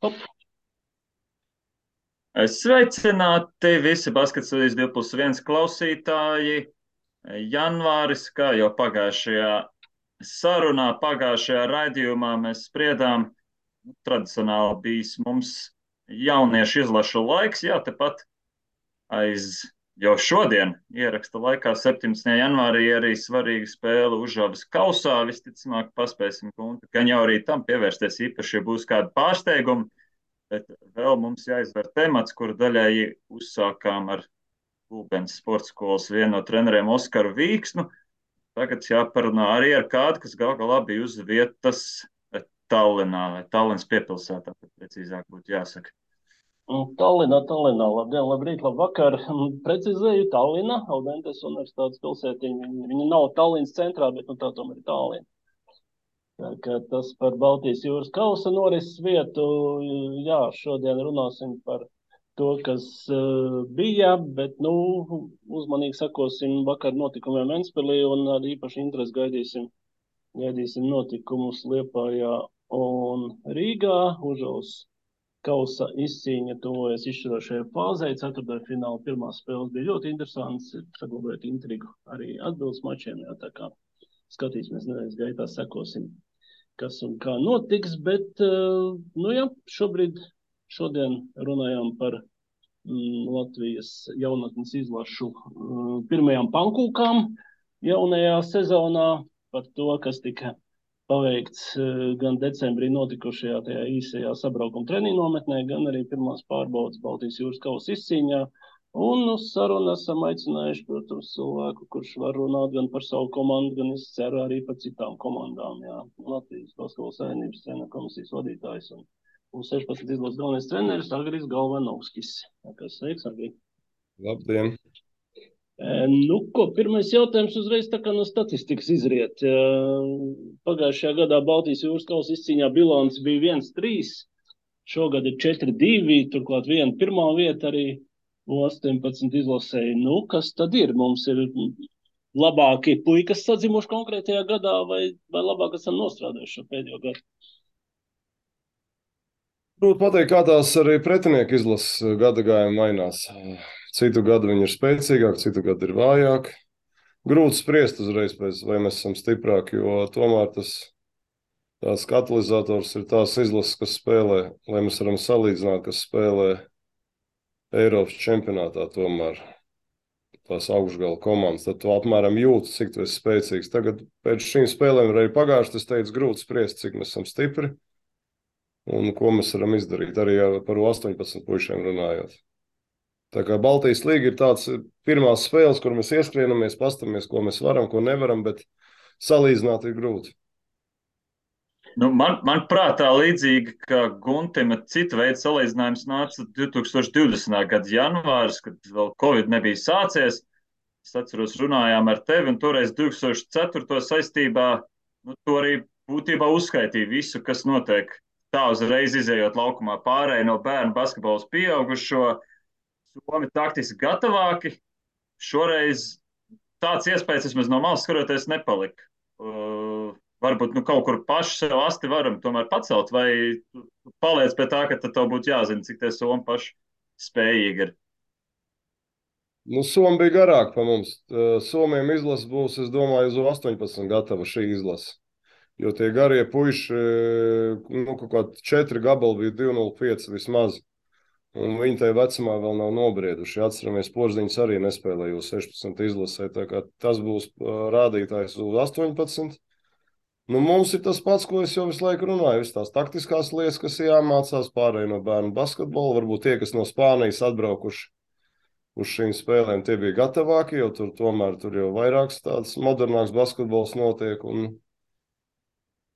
Hop. Sveicināti visi Basketballīs 2+1 klausītāji. Janvāris, kā jau pagājušajā sarunā, pagājušajā raidījumā mēs spriedām, tradicionāli bijis mums jauniešu izlašu laiks, jā, tepat aiz jau šodien ieraksta laikā 17. janvārī arī svarīga spēle Užavas kausā. Visticamāk paspēsim gan jau arī tam pievērsties īpaši, ja būs kādi pārsteigumi. Bet vēl mums jāizver temats, kuru daļēji uzsākām ar Gulbens sporta skolas vienu no treneriem Oskaru Vīksnu. Tagad jāparunā arī ar kādu, kas gal galā bija uz vietas Tallinā, vai Tallinas piepilsētā, tad precīzāk būtu jāsaka. Tallinā. Labdien, labrīt, labvakar. Precizēju, Tallinā, Audentes universitātes pilsētiņa. Viņa nav Tallinas centrā, bet tā tomēr ir Tallina. Tā kā tas par Baltijas jūras kausa norises vietu. Jā, šodien runāsim par to, kas bija, bet, uzmanīgi sakosim vakar notikumiem Ventspilī un ar īpaši interesi gaidīsim notikumus Liepājā un Rīgā. Užavas kausa izcīņa tuvojas izšķirošajai fāzei. Ceturtdaļfināla pirmās spēles bija ļoti interesants, saglabājot intrigu arī atbildes mačiem. Jā, tā kā skatīsimies nedēļas gaitā, sekosim, kas un kā notiks, bet, šodien runājām par Latvijas jaunatnes izlašu pirmajām pankūkām jaunajā sezonā, par to, kas tika paveikts gan decembrī notikušajā tajā īsajā sabraukuma treniņu nometnē, gan arī pirmās pārbaudas Baltijas jūras kausa izcīņā. Un uz sarunu esam aicinājuši, protams, cilvēku, kurš var runāt gan par savu komandu, gan es ceru arī par citām komandām. Jā. Latvijas Basketbola savienības treneru komisijas vadītājs un 16 izlases galvenais treneris Agris Galvanovskis. Sveiks, Agri. Labdien! Pirmais jautājums uzreiz tā kā no statistikas izriet. Pagājušajā gadā Baltijas jūras kausa izcīņā bilants bija 1-3, šogad ir 4-2, turklāt viena pirmā vieta arī 18 izlasēji. Kas tad ir? Mums ir labākie puikas sadzimuši konkrētajā gadā vai labāk esam nostrādājuši šo pēdējo gadu? Grūti pateikt, kā tās arī pretinieku izlases gada gājumi mainās. Citu gadu viņi ir spēcīgāki, citu gadu ir vājāki. Grūti spriest uzreiz pēc, vai mēs esam stiprāki, jo tomēr tās katalizators ir tās izlases, kas spēlē, lai mēs varam salīdzināt, kas spēlē Eiropas čempionātā tomēr tās augšgala komandas. Tad tu apmēram jūti, cik tu esi spēcīgs. Tagad pēc šīm spēlēm ir arī pagājuši, es teicu, grūti spriest, cik mēs esam stipri un ko mēs varam izdarīt, arī par 18 puišiem runājot. Tā kā Baltijas līga ir tāds pirmās spēles, kur mēs ieskrienamies, pastamies, ko mēs varam, ko nevaram, bet salīdzināt ir grūti. Man prātā līdzīgi, ka Guntim cita veida salīdzinājums nāca 2020. gada janvāris, kad vēl Covid nebija sācies. Es atceros, runājām ar tevi, un toreiz 2004. saistībā, to arī būtībā uzskaitīja visu, kas notiek. Tā uzreiz izējot laukumā pārēj no bērnu basketbola uz pieaugušo. Somi taktiski gatavāki. Šoreiz tāds iespējas vismaz no malas skatoties nepalika. Varbūt kaut kur paši sev asti varam tomēr pacelt, vai paliec pie tā, ka tad tev būtu jāzina, cik tie Somi paši spējīgi ir. Somi bija garāk pa mums. Somiem izlase būs, es domāju, uz 18 gatava šī izlase. Jo tie garie puiši, kaut kādi 4 gabali bija 2,05 vismaz. Un viņi tajā vecumā vēl nav nobrieduši. Atceramies, Porziņš arī nespēlēja uz 16 izlasē. Tā kā tas būs rādītājs uz 18. Mums ir tas pats, ko es jau visu laiku runāju. Visas tās taktiskās lietas, kas jāmācās pārēj no bērnu basketbola. Varbūt tie, kas no Spānijas atbraukuši uz šīm spēlēm, tie bija gatavāki, jo tur jau vairāks tāds modernāks basketbols notiek. Un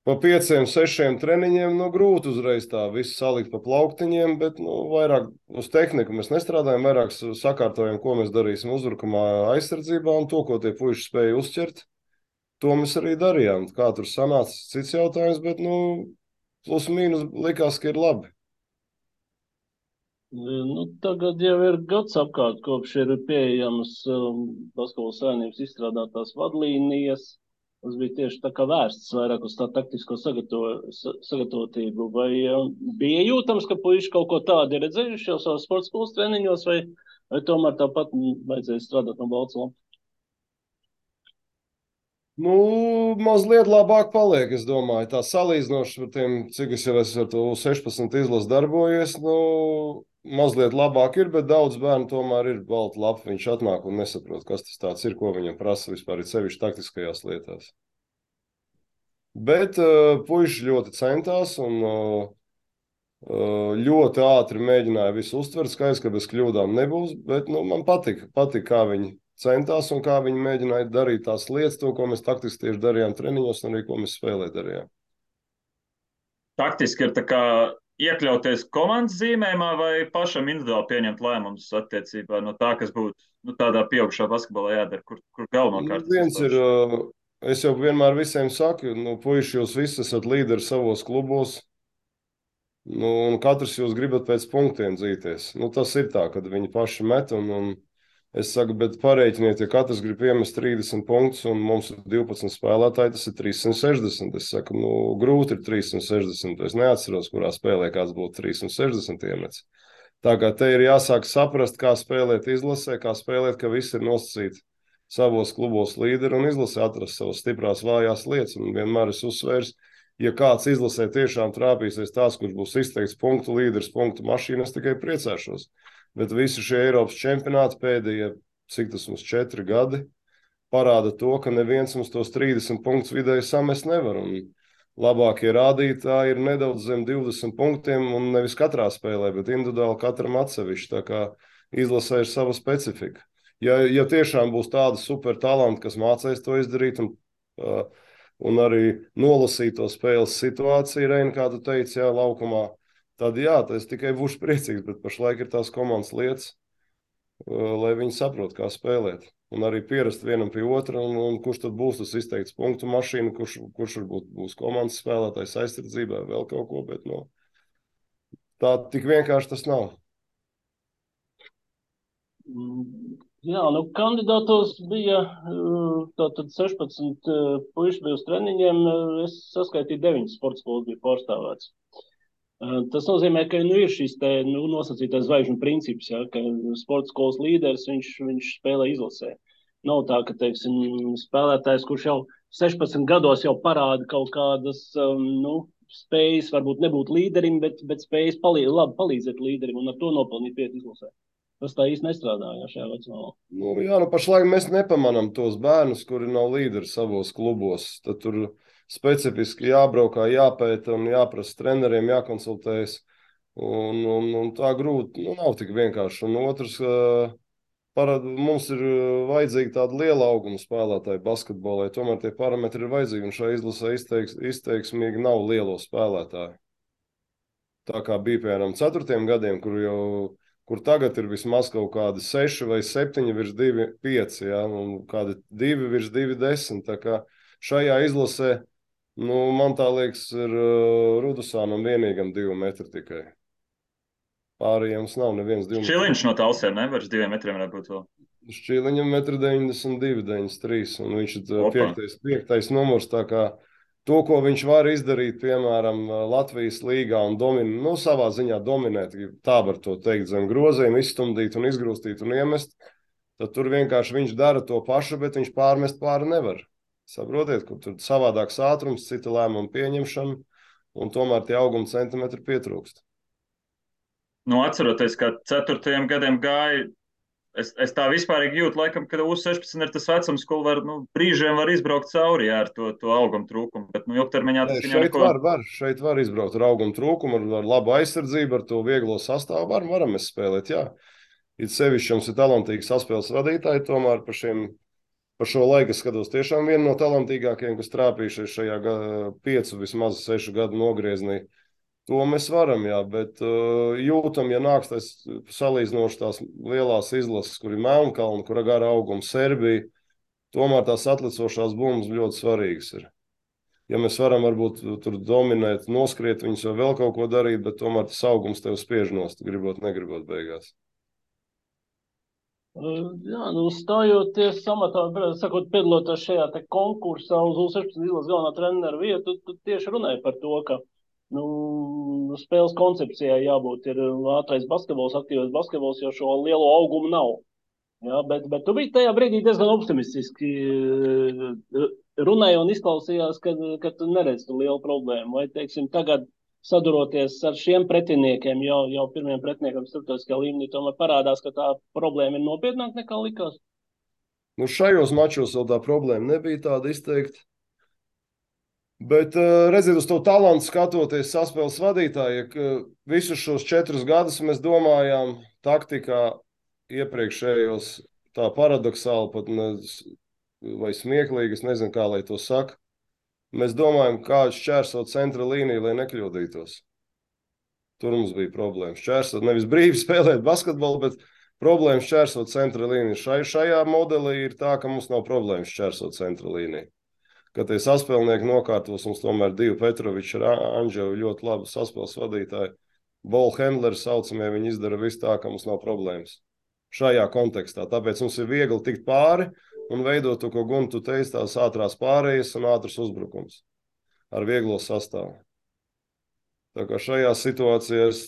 pa 5, 6 treniņiem grūti uzreiz tā visu salikt pa plauktiņiem, bet vairāk uz tehniku mēs nestrādājam, vairāk sakārtojam, ko mēs darīsim uzbrukumā aizsardzībā, un to, ko tie puiši spēja uzķert, to mēs arī darījām. Kā tur sanāca, cits jautājums, bet plus mīnus likās, ka ir labi. Tagad jau ir gads apkārt, kopš ir pieejamas Basketbola savienības izstrādātās vadlīnijas. Tas bija tieši tā kā vērsts vairāk uz tā taktisko sagatavotību. Vai bija jūtams, ka puiši kaut ko tādu ir redzējuši jau savas sporta skolas treniņos, vai tomēr tāpat vajadzēja strādāt no balts lapas? Nu, mazliet labāk paliek, es domāju. Tā salīdzinoši ar tiem, cik es jau esmu ar to 16 izlasu darbojies, nu, mazliet labāk ir, bet daudz bērnu tomēr ir balta lapa. Viņš atnāk un nesaprot, kas tas tāds ir, ko viņam prasa vispār, ir sevišķi taktiskajās lietās. Bet puiši ļoti centās un ļoti ātri mēģināja visu uztvert. Skaidrs, ka bez kļūdām nebūs, bet man patika, kā viņi centās un kā viņi mēģināja darīt tās lietas, to, ko mēs taktiski tieši darījām treniņos un arī ko mēs spēlē darījām. Taktiski ir tā kā iekļauties komandas zīmējumā vai pašam individuāli pieņemt lēmumus attiecībā no tā, kas būtu tādā pieaugušā basketbolā jādara, kur galvenokārt viens ir, es jau vienmēr visiem saku, puiši, jūs visi esat līderi savos klubos, un katrs jūs gribat pēc punktiem dzīties. Tas ir tā, kad viņi paši met un es saku, bet pareiķiniet, ja katrs grib iemest 30 punktus un mums ir 12 spēlētāji, tas ir 360. Es saku, grūti ir 360. Es neatceros, kurā spēlē kāds būtu 360 iemets. Tā kā te ir jāsāk saprast, kā spēlēt izlasē, kā spēlēt, ka visi ir nosacīti savos klubos līderi un izlasē atrast savas stiprās vājās lietas. Un vienmēr es uzsvērs, ja kāds izlasē tiešām trāpīsies tās, kurš būs izteikts punktu līderis, punktu mašīna, es tikai priecāšos. Bet visi šie Eiropas čempionāti pēdējie, cik tas mums 4 gadi, parāda to, ka neviens mums tos 30 punktus vidēji samest nevar. Un labākie rādītāji ir nedaudz zem 20 punktiem un nevis katrā spēlē, bet individuāli katram atsevišķi. Tā kā izlasē ir sava specifika. Ja tiešām būs tāda super talanti, kas mācēs to izdarīt un arī nolasīt to spēles situāciju, Reina, kā tu teici, jā, laukumā, tad jā, es tikai būšu priecīgs, bet pašlaik ir tās komandas lietas, lai viņi saprot, kā spēlēt. Un arī pierast vienam pie otra, un kurš tad būs tas izteikts punktu mašīna, kurš varbūt būs komandas spēlētājs aizsardzībā, vēl kaut ko, bet tā tik vienkārši tas nav. Jā, kandidātos bija tātad 16 puiši bija uz treniņiem, es saskaitīju 9 sporta skolas bija pārstāvēts. Tas nozīmē, ka ir šis nosacītais zvaigžņu princips, ja, ka sporta skolas līderis viņš spēlē izlasē. Nav tā, ka, teiksim, spēlētājs, kurš jau 16 gados jau parāda kaut kādas spējas, varbūt nebūt līderim, bet spējas labi palīdzēt līderim un ar to nopelnīt vietu izlasē. Tas tā īsti nestrādāja šajā vecumā. Pašlaik mēs nepamanām tos bērnus, kuri nav līderi savos klubos. Tad tur specifiski jābraukā, jāpēta un jāprasa treneriem, jākonsultējas. Un tā grūti, nav tik vienkārši. Un otrs, mums ir vajadzīgi tāda liela auguma spēlētāji basketbolē. Tomēr tie parametri ir vajadzīgi, un šajā izlasē izteiksmīgi nav lielo spēlētāju. Tā kā bija, piemēram, 4. gadiem, kur tagad ir vismaz kaut kādi 6 vai 7 virs 2,5, ja, un kādi 2 virs 2,10. Tā kā šajā izlasē, man tā liekas, ir Rudusānam vienīgam 2 metri tikai. Pārējiem nav neviens 2 metri. Šķiliņš no Talsiem nevar 2 metriem būt vēl. Šķiliņam 1,92 m, 93 m, un viņš ir 5. numurs, tā kā to, ko viņš var izdarīt, piemēram, Latvijas līgā un savā ziņā dominēt, tā var to teikt, zem groziem, izstumdīt un izgrūstīt un iemest, tad tur vienkārši viņš dara to pašu, bet viņš pārmest pāri nevar. Saprotiet, ka tur savādāks ātrums, cita lēmuma pieņemšana, un tomēr tie auguma centimetri pietrūkst. Atceroties, ka 4. gadiem gāja, es tā vispārīgi jūtu, laikam, ka U16 ir tas vecums, ko brīžiem var izbraukt cauri ar to augumu trūkumu, bet ilgtermiņā tas viņam neko... Šeit var izbraukt ar augumu trūkumu, ar labu aizsardzību, ar to vieglo sastāvu, varam mēs spēlēt, jā. It sevišķi mums ir talantīgi saspēles vadītāji, tomēr par šo laiku skatos tiešām vienu no talantīgākajiem, kas trāpījušies šajā 5, vismaz 6 gadu nogrieznī. To mēs varam, jā, bet jūtam, ja nāks tas salīdzinoši tās lielās izlases, kur ir Melnkalna, kur ir gara auguma Serbija, tomēr tās atlicošās bumbas ļoti svarīgas ir. Ja mēs varam varbūt tur dominēt, noskriet viņus vai vēl kaut ko darīt, bet tomēr tas augums tev spiež nost, gribot, negribot beigās. Jā, nu, stājoties samatā, sakot, piedaloties šajā te konkursā uz U16 izlases galvenā trenera vietu, tu tieši runāji par to, ka nu, spēles koncepcijai jābūt ir ātrais basketbols, aktīvais basketbols, jo šo lielo augumu nav. Jā, bet tu biji tajā brīdī diezgan optimistiski runāji un izklausījās, ka tu neredzi tu lielu problēmu. Vai, teiksim, tagad saduroties ar šiem pretiniekiem, jau pirmiem pretiniekam starptautiskajā līmenī, tomēr parādās, ka tā problēma ir nopietnāka nekā likās? Nu, šajos mačos vēl tā problēma nebija tāda izteikta. Bet redziet, uz to talantu skatoties, saspēles vadītāji, ka visus šos 4 gadus mēs domājām taktikā iepriekšējos tā paradoxāli pat vai smieklīgi, es nezinu, kā lai to saka. Mēs domājam, kā šķērsot centra līniju, lai nekļūdītos. Tur mums bija problēmas. Šķērsot, nevis brīvi spēlēt basketbolu, bet problēmas šķērsot centra līniju. Šajā modelī ir tā, ka mums nav problēmas šķērsot centra līniju. Kad tie saspēlnieki nokārtos, mums tomēr divi Petroviči ar Anģevu ļoti labi saspēles vadītāji. Ball handleri saucamie, viņi izdara visu tā, ka mums nav problēmas. Šajā kontekstā. Tāpēc mums ir viegli tikt pāri un veidot to, ko Guntu teica, tās ātrās pārējas un ātrs uzbrukums ar vieglo sastāvu. Tā kā šajā situācijā es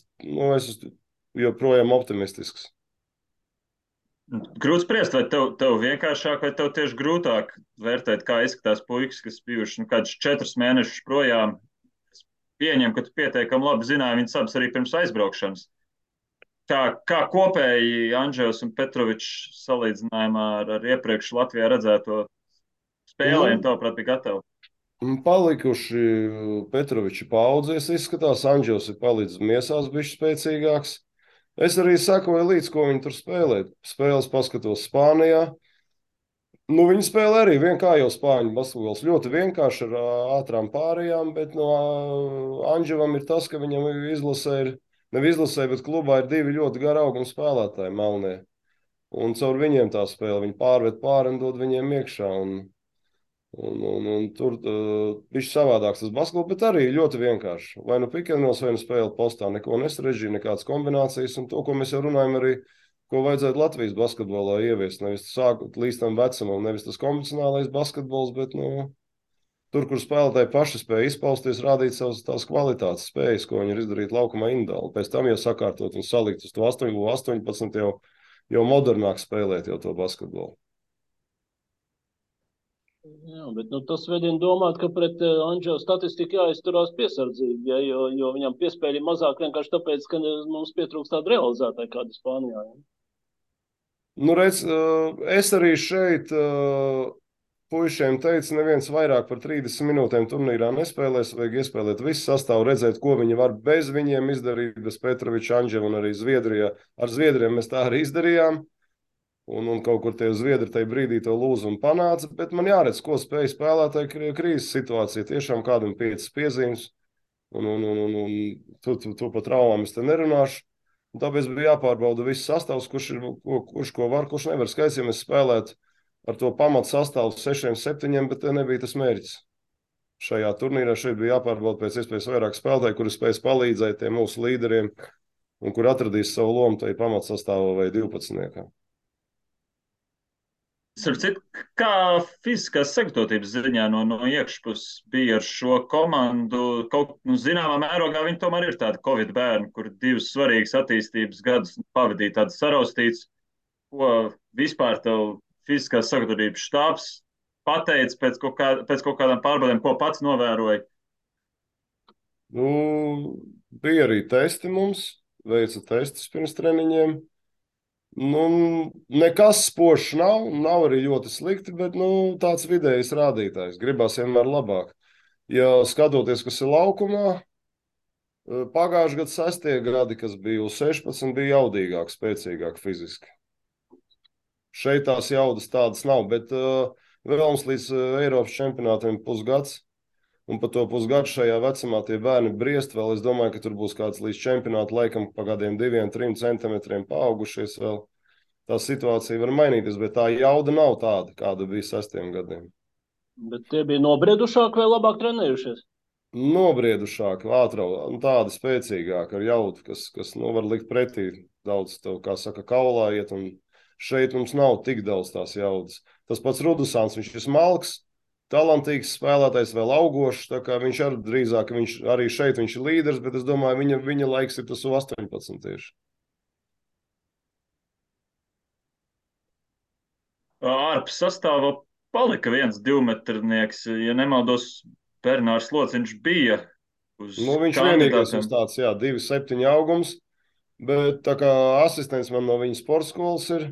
joprojām optimistisks. Grūti spriest, vai tev vienkāršāk, vai tev tieši grūtāk vērtēt, kā izskatās puikas, kas bijuši kādus 4 mēnešus projām. Es pieņemu, ka tu pietiekami labi zināji viņas abas arī pirms aizbraukšanas. Kā kopēji Anģevs un Petrovičs salīdzinājumā ar iepriekš Latvijā redzēto spēlēm, tavuprāt, bija gatavi? Palikuši Petroviči paudzies izskatās, Anģevs ir palicis miesās bišķi spēcīgāks. Es arī sekoju līdz, ko viņi tur spēlē. Spēles paskatos Spānijā. Nu, viņi spēlē arī kā jau spāņu basketbols. Ļoti vienkārši ar ātrām pārējām, bet no Anģevam ir tas, ka viņam bet klubā ir 2 ļoti gari auguma spēlētāji melnie. Un caur viņiem tā spēle. Viņi pārved pāri un dod viņiem iekšā. Un tur bija savādāks tas basketbols, bet arī ļoti vienkārši. Vai nu pikēnos, vai nu spēle postā, neko nesarežģīja, nekādas kombinācijas. Un to, ko mēs jau runājam, arī, ko vajadzētu Latvijas basketbolā ieviest. Nevis sākot līdz tam vecumam, nevis tas konvencionālais basketbols, bet tur, kur spēlētāji paši spēja izpausties, rādīt savas tās kvalitātes spējas, ko viņi ir izdarīt laukumā individuāli. Pēc tam jau sakārtot un salikt uz to 18 jau modernāk spēlēt jau to basketbolu. Jā, bet tas vedina domāt, ka pret Anģevu statistiku jāizturās piesardzīgi, ja, jo viņam piespēļi mazāk vienkārši tāpēc, ka mums pietrūkst tāda realizētāja kāda Spānijā. Ja? Nu, redz, es arī šeit puišiem teicu, neviens vairāk par 30 minūtēm turnīrā nespēlēs, vajag iespēlēt visu sastāvu, redzēt, ko viņi var bez viņiem izdarīt, bez Petroviča, Anģeva un arī Zviedrijā. Ar Zviedriem mēs tā arī izdarījām. Un kaut kur tie zviedri tajā brīdī to lūzumu panāca, bet man jāredz, ko spēja spēlētāji krīzes situācija. Tiešām kādam 5 piezīmes, un tu par traumām es te nerunāšu. Un tāpēc bija jāpārbauda viss sastāvs, kurš ko var, kurš nevar. Skaidrs, ja mēs spēlētu ar to pamatu sastāvu 6, 7, bet te nebija tas mērķis. Šajā turnīrā šeit bija jāpārbauda pēc iespējas vairāk spēlētāji, kuri spējas palīdzēt tiem mūsu līderiem un kur atradīs savu lomu tajā pamatu sastāvā vai 12. Kā fiziskās sagatavotības ziņā no iekšpuses bija ar šo komandu? Zināmā mērogā viņi tomēr ir tādi Covid bērni, kur 2 svarīgas attīstības gadus pavadīja tādas saraustītas. Ko vispār tev fiziskās sagatavotības štābs pateica pēc kaut kādām pārbaudēm, ko pats novēroja? Bija arī testi mums, veica testus pirms treniņiem. Nekas spožs nav arī ļoti slikti, bet tāds vidējs rādītājs. Gribās vienmēr labāk. Ja skatoties, kas ir laukumā, pagājušajā gadā 6. gadi, kas bija uz 16, bija jaudīgāk, spēcīgāk fiziski. Šeit tās jaudas tādas nav, bet vēl mums līdz Eiropas čempionātiem pusgads. Un pa to pusgadu šajā vecumā tie bērni briest vēl. Es domāju, ka tur būs kāds līdz čempionāta laikam pa kādiem 2-3 centimetriem paaugušies vēl. Tā situācija var mainīties, bet tā jauda nav tāda, kāda bija 6 gadiem. Bet tie bija nobriedušāki vai labāk trenējušies? Nobriedušāki, tādi spēcīgāki ar jaudu, kas var likt pretī daudz tev, kā saka, kaulā iet un Šeit mums nav tik daudz tās jaudas. Tas pats Rudusāns, viņš ir smalks, talantīgs spēlētājs, vēl augošs, tā kā viņš arī drīzāk, arī šeit viņš ir līderis, bet es domāju, viņa laiks ir tas U18 tieši. Ārpus sastāvā palika viens 2-metrnieks, ja nemaldos, Bernārs Lociņš bija uz Viņš vienīgais uz tāds, 2,7 augums, bet tā kā asistents man no viņa sporta skolas ir,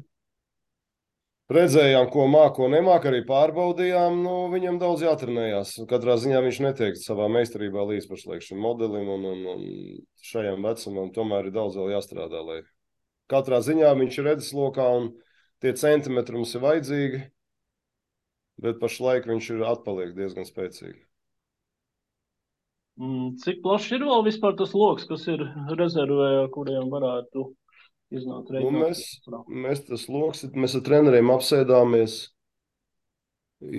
redzējām, ko māk, ko nemāk, arī pārbaudījām, viņam daudz jātrenējās. Katrā ziņā viņš netiek savā meistarībā līdz pašlaik šim modelim un šajam vecumam, tomēr ir daudz vēl jāstrādā, lai katrā ziņā viņš ir redzeslokā un tie centimetri mums ir vajadzīgi, bet pašlaik viņš ir atpaliek diezgan spēcīgi. Cik plašs ir vēl vispār tas loks, kas ir rezervē, kuriem varētu iznākt reiķināt? Mēs ar treneriem apsēdāmies,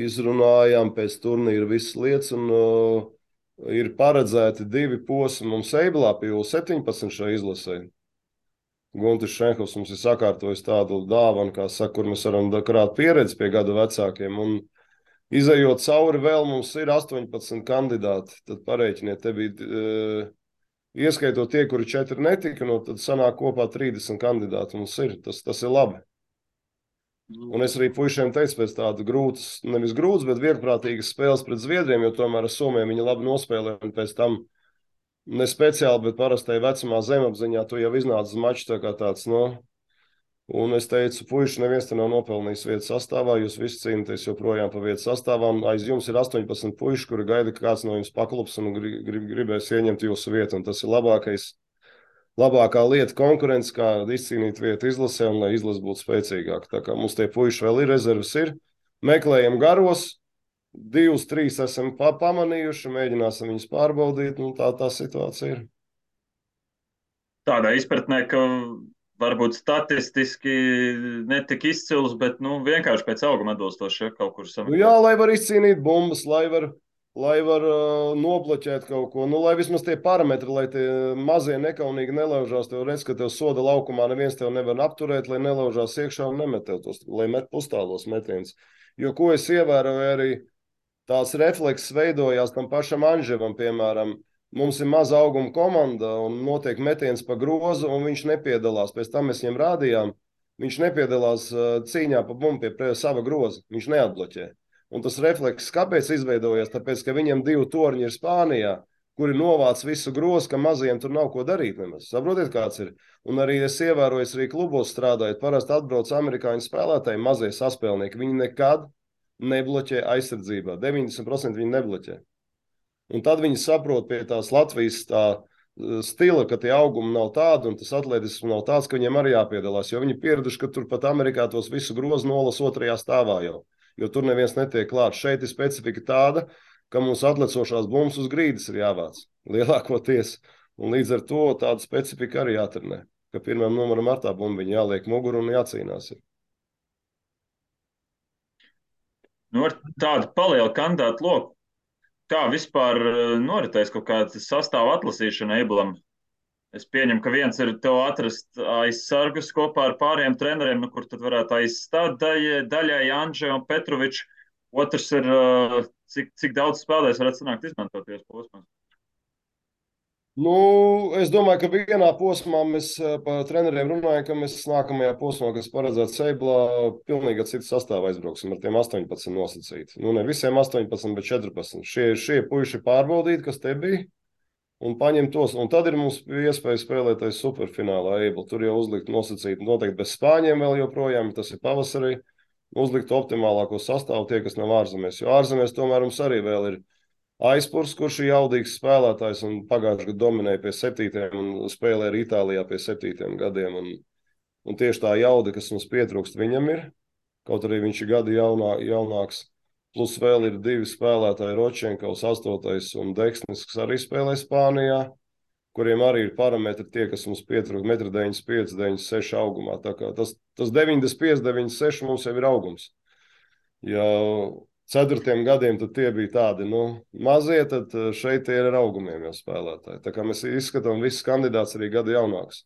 izrunājām pēc turnīra visas lietas, un ir paredzēti 2 posmi mums Eiblā pie U17 šai izlasē. Guntis Šenhovs mums ir sakārtojis tādu dāvanu, kā saka, kur mēs varam krāt pieredzi pie gadu vecākiem, un izejot cauri vēl mums ir 18 kandidāti, tad pareiķiniet, te bija, ieskaitot tie, kuri 4 netika, tad sanāk kopā 30 kandidāti mums ir, tas ir labi. Un es arī puišiem teicu pēc tādu grūtas, nevis grūtas, bet vieglprātīgas spēles pret Zviedriem, jo tomēr ar Somiem viņi labi nospēlē, un pēc tam ne speciāli, bet parastai vecumā zemapziņā tu jau iznāc uz maču tā kā tāds, un es teicu, puiši, neviens te nav nopelnījis vietas sastāvā, jūs visi cīnāties joprojām pa vietas sastāvā, un aiz jums ir 18 puiši, kuri gaida, ka kāds no jums paklups un gribēs ieņemt jūsu vietu, un tas ir labākā lieta konkurence, kā izcīnīt vietu izlasē, un lai izlase būtu spēcīgāka. Tā kā mums tie puiši vēl ir, rezerves ir, meklējam garos, 2, 3 esam pamanījuši, mēģināsim viņus pārbaudīt, un tā situācija ir. Tādā izpratnē, ka varbūt statistiski netika izcils, bet vienkārši pēc auguma atbilstoši, ja kaut kur sameklēt. Jā, lai var izcīnīt bumbas, lai var nobloķēt kaut ko, lai vismaz tie parametri, lai tie mazie nekaunīgi nelaužās, tev redz, ka tev soda laukumā neviens tev nevar apturēt, lai nelaužās iekšā un nemet tev tos, lai met pustālos metienus. Jo, ko es ievēroju, arī tās reflekses veidojās tam pašam Anževam, piemēram. Mums ir maza auguma komanda un notiek metiens pa grozu, un viņš nepiedalās. Pēc tam mēs viņam rādījām, viņš nepiedalās cīņā pa bumbu pie sava groza. Viņš neatbloķē. Un tas refleks kāpēc izveidojās? Tāpēc, ka viņam 2 torņi ir Spānijā, kuri novāc visu grozu, ka mazajiem tur nav ko darīt nemaz. Saprotiet, kāds ir? Un arī es ievēroju, arī klubos strādājot, parasti atbrauc amerikāņu spēlētāji, mazie saspēlnieki. Viņi nekad nebloķē aizsardzībā. 90% viņi nebloķē. Un tad viņi saprot pie tās Latvijas stila, ka tie augumi nav tādi un tas atletisms nav tāds, ka viņiem arī jāpiedalās. Jo viņi pieraduši, ka tur pat Amerikā tos visu grozu nolas 2. stāvā jau. Jo tur neviens netiek klāt. Šeit ir specifika tāda, ka mums atlecošās bumbas uz grīdas ir jāvāc lielākoties. Un līdz ar to tāda specifika arī jātrenē. Ka pirmam numeram ar tā bumbiņa jāliek muguru un jācīnās. Ar tādu palielu kandidātu loku. Kā vispār noritēs kaut kāda sastāva atlasīšana Eiblam? Es pieņemu, ka viens ir tev atrast aizsargus kopā ar pāriem treneriem, kur tad varētu aizstāt daļai Anže un Petroviču. Otrs ir, cik daudz spēlēs varētu sanākt izmantoties posmās? Es domāju, ka vienā posmā mēs par treneriem runājam, ka mēs nākamajā posmā, kas paredzēts Eiblā, pilnīgi citu sastāvu aizbrauksim ar tiem 18 nosacīti. Ne visiem 18, bet 14. Šie puiši pārbaudīt, kas te bija, un paņemt tos. Un tad ir mums iespēja spēlēties superfinālā Eibla. Tur jau uzlikt nosacīti noteikti bez Spāņiem vēl joprojām, tas ir pavasarī. Uzlikt optimālāko sastāvu tie, kas nav ārzemēs. Jo ārzemēs tomēr mums arī vēl ir Aizpurs, kurš ir jaudīgs spēlētājs un pagājušajā gadā dominēja pie 7. un spēlēja arī Itālijā pie 7 gadiem. Un tieši tā jauda, kas mums pietrūkst, viņam ir. Kaut arī viņš ir gadi jaunāks. Plus vēl ir 2 spēlētāji, Ročenkovs 8. un Deksnis, kas arī spēlē Spānijā, kuriem arī ir parametri tie, kas mums pietrūkst 1,95 m, 96 augumā. Tā kā tas 95, 96 mums jau ir augums. Ja 4 gadiem tad tie bija tādi, mazie, tad šeit tie ir ar augumiem jau spēlētāji. Tā kā mēs izskatām visus kandidātus arī gadu jaunāks.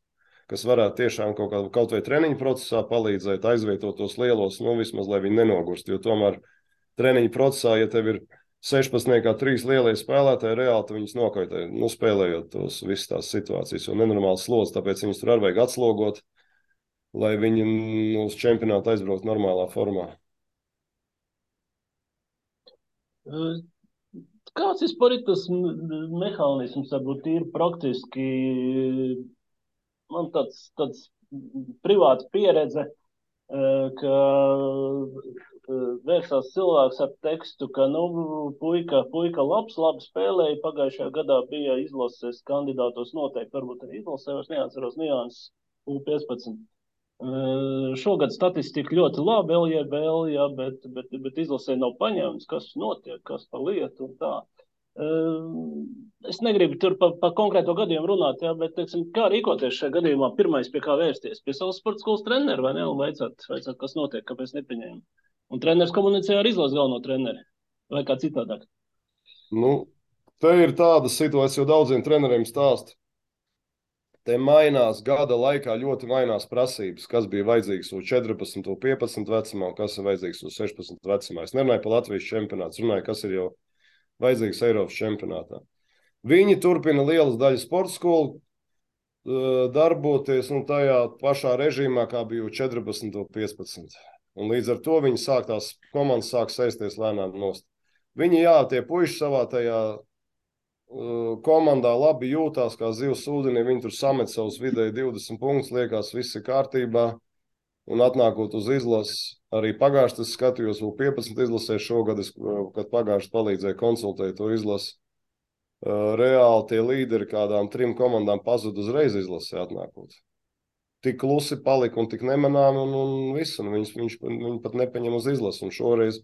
kas varētu tiešām kaut vai treniņu procesā palīdzēt, aizvietot tos lielos, vismaz, lai viņi nenogurst, jo tomēr treniņu procesā, ja tev ir 16. 3 lielie spēlētāji, reāli tu viņus nokaitē, spēlējot tos visas tās situācijas, jo nenormāls slods, tāpēc viņus tur arī vajag atslogot, lai viņi uz čempionātu aizbraukt normālā formā. Kāds vispār ir tas mehānisms, varbūt ir praktiski, man tāds privāta pieredze, ka vērsās cilvēks ar tekstu, ka, puika labi spēlēja, pagājušajā gadā bija izlases kandidātos noteikti, varbūt arī izlasē, vairs neatceros nianses U15. Šogad statistika ļoti labi, LJBL, ja, bet izlasē nav paņemts, kas notiek, kas pa lietu un tā. Es negribu tur pa konkrēto gadījumu runāt, ja, bet, teiksim, kā rīkoties šajā gadījumā, pirmais pie kā vērsties? Pie savas sporta skolas treneru, vai ne? Un vaicāt, kas notiek, kāpēc nepieņēma. Un treneris komunicē ar izlases galveno treneri, vai kā citādāk? Te ir tāda situācija, jo daudziem treneriem stāst. Te mainās gada laikā, ļoti mainās prasības, kas bija vajadzīgs uz 14, 15 vecumā, un kas ir vajadzīgs uz 16 vecumā. Es nerunāju par Latvijas čempionātu, runāju, kas ir jau vajadzīgs Eiropas čempionātā. Viņi turpina lielas daļas sporta skolu darboties tajā pašā režīmā, kā bija 14 un 15. Un līdz ar to viņi tās komandas sāk sēsties lēnām nost. Viņi, tie puiši savā tajā komandā labi jūtās kā zivs ūdenī, viņi tur samet savus vidēji 20 punktus, liekas, viss ir kārtībā, un atnākot uz izlases, arī pagājuši es skatījos vēl 15 izlasē šogad, kad pagājuši palīdzēja konsultēt to izlasi, reāli tie līderi kādām 3 komandām pazud uzreiz izlasē atnākot. Tik klusi palika un tik nemanām, un viss, un viņi pat nepaņem uz izlasi, un šoreiz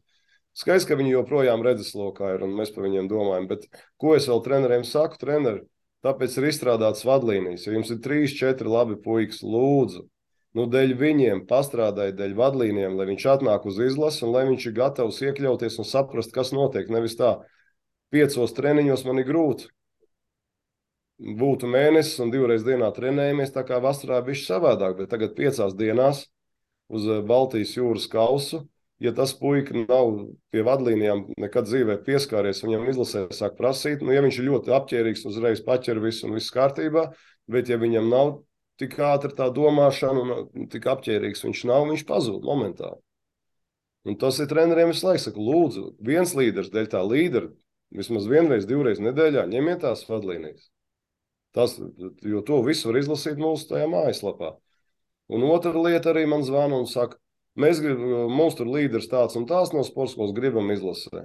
skaidrs, ka viņi joprojām redzeslokā ir, un mēs par viņiem domājam, bet ko es vēl treneriem saku? Treneri, tāpēc ir izstrādāts vadlīnijas. Ja jums ir 3, 4 labi puikas, lūdzu, dēļ viņiem pastrādājiet dēļ vadlīnijām, lai viņš atnāk uz izlasi un lai viņš ir gatavs iekļauties un saprast, kas notiek. Nevis tā, 5 treniņos man ir grūti. Būtu mēnesis un 2 reizes dienā trenējamies, tā kā vasarā bišķi savādāk, bet tagad 5 dienās uz Baltijas jūras kausu. Ja tas puika nav pie vadlīnijām nekad dzīvē pieskāries, viņam izlasē sāk prasīt, ja viņš ir ļoti apķērīgs, uzreiz paķer visu un viss kārtībā, bet ja viņam nav tik ātri tā domāšana un tik apķērīgs viņš pazūd momentāli. Un tas ir treneriem visu laiku, saka, lūdzu, viens līderis dēļ tā līdera, vismaz 1 reizi, 2 reizes nedēļā, ņemiet tās vadlīnijas. Jo to visu var izlasīt mūsu tajā mājaslapā. Un otra lieta arī man zvana un saka, mums tur līderis tāds un tās no sporta skolas gribam izlasē.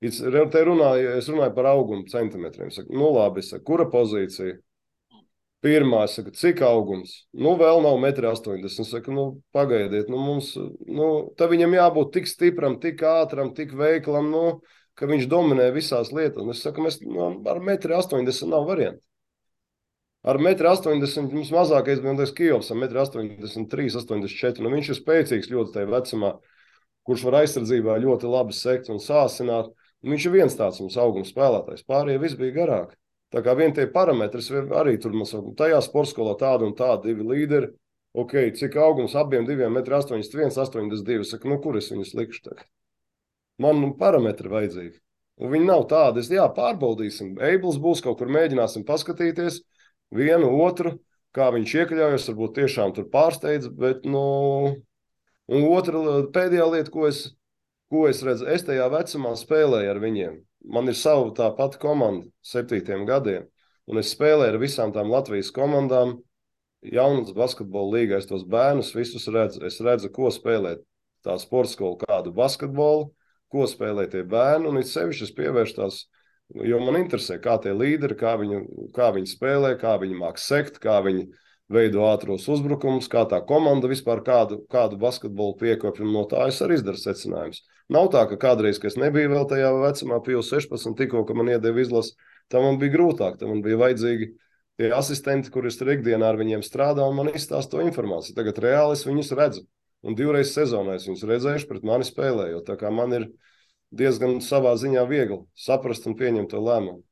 Es runāju par augumu centimetriem. Saku, labi, saku, kura pozīcija? Pirmā, es saku, cik augums? Vēl nav 1,80 m. Es saku, pagaidiet, tā viņam jābūt tik stipram, tik ātram, tik veiklam, ka viņš dominē visās lietās. Es saku, ar 1,80 m nav variantu. Ar 1,80 m mums mazākais bija Kijovs, ar 1,83 m, 84 m. Viņš ir spēcīgs ļoti tajā vecumā, kurš var aizsardzībā ļoti labi sekt un sāsināt. Viņš ir viens tāds mums augums spēlētājs. Pārējie viss bija garāk. Tā kā vien tie parametri arī tur mums tajā sportskolā tādu un tādu 2 līderi. Ok, cik augums abiem 2,81 m, 82 m. Saku, kur es viņus likšu tagad? Man parametri vajadzīgi. Un viņi nav tādi. Pārbaudīsim. Eibls būs kaut kur, mēģināsim paskatīties. Vienu, otru, kā viņš iekļaujas, varbūt tiešām tur pārsteidz, bet, un otra pēdējā lieta, ko es redzu, es tajā vecumā spēlēju ar viņiem. Man ir sava tā pati komanda 7 gadiem, un es spēlēju ar visām tām Latvijas komandām, jaunas basketbola līgā, es tos bērnus visus redzu, es redzu, ko spēlē tā sporta skola, kādu basketbolu, ko spēlē tie bērni, un it sevišķi es pievēršu tās. Jo man interesē, kā tie līderi, kā viņi spēlē, kā viņi māk sekt, kā viņi veido ātros uzbrukumus, kā tā komanda vispār kādu basketbolu piekopja, un no tā es arī izdaru secinājumus. Nav tā, ka kādreiz, kad es nebiju vēl tajā vecumā, pie 16, tikko, ka man iedeva izlasi, tā man bija grūtāk, tā man bija vajadzīgi tie asistenti, kuri tur ikdienā ar viņiem strādā, un man izstāsta to informāciju. Tagad reāli es viņus redzu, un 2 reizes sezonā es viņus redzējuši pret mani spēlējot, tā kā man ir diezgan savā ziņā viegli saprast un pieņemt to lēmumu.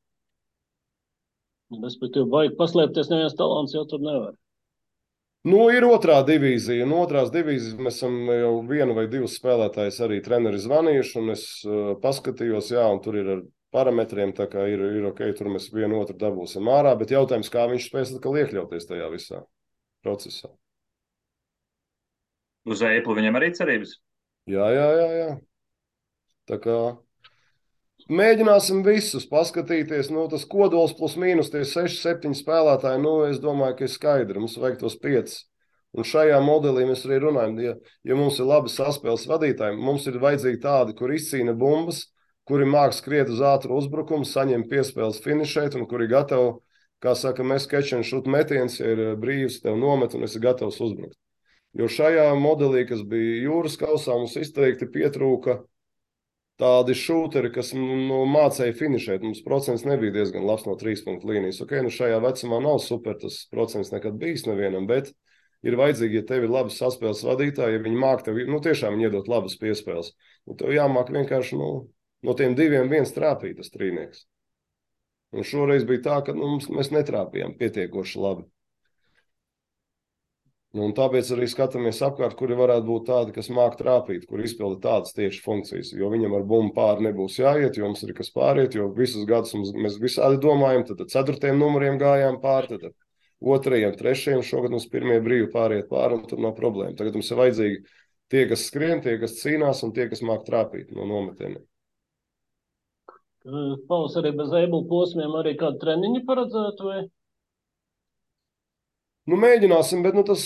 Respektīvi, vajag paslēpties, neviens talants jau tur nevar. Nu, ir otrā divīzija. No otrās divīzijas mēs esam jau vienu vai divus spēlētājus arī treneri zvanījuši, un es paskatījos, jā, un tur ir ar parametriem, tā kā ir ok, tur mēs vienu otru dabūsim ārā, bet jautājums, kā viņš spēs atkal iekļauties tajā visā procesā. Uz Apple viņam arī cerības? Jā. Tā kā mēģināsim visus paskatīties. Nu, tas kodols plus mīnus tie 6, 7 spēlētāji, nu, es domāju, ka ir skaidri. Mums vajag tos 5. Un šajā modelī mēs arī runājam, ja mums ir labi saspēles vadītāji, mums ir vajadzīgi tādi, kur izcīna bumbas, kuri māk skriet uz ātru uzbrukumu, saņem piespēles finišēt un kuri gatavi, kā saka, mēs catch and shoot metiens, ja ir brīvs, tev nomet un esi gatavs uzbrukt. Jo šajā modelī, kas bija jūras kausā, mums izteikti pietrūka tādi šūteri, kas mācīja finišēt. Mums procents nebija diezgan labs no 3 punktu līnijas. Ok, nu šajā vecumā nav super tas procents nekad bijis nevienam, bet ir vajadzīgi, ja tev ir labi saspēles vadītāji, ja viņi māk tev, nu tiešām viņi iedot labas piespēles. Nu tev jāmāk vienkārši, no tiem 2 viens trāpīt tas trīnieks. Un šoreiz bija tā, ka mēs netrāpījām pietiekoši labi. Un tāpēc arī skatāmies apkārt, kuri varētu būt tādi, kas māk trāpīt, kur izpilda tādas tieši funkcijas. Jo viņam ar bumbu pāri nebūs jāiet, jo mums ir kas pāriet, jo visus gadus mēs visādi domājam, tad 4. numuriem gājām pāri, tad 2., 3. šogad mums pirmie brīvi pāriet pāri, un tur nav problēma. Tagad mums ir vajadzīgi tie, kas skrien, tie, kas cīnās, un tie, kas māk trāpīt no nometieniem. Paus arī bez Apple posmiem arī kādu treniņu paredzētu, vai? Nu, mēģināsim, bet tas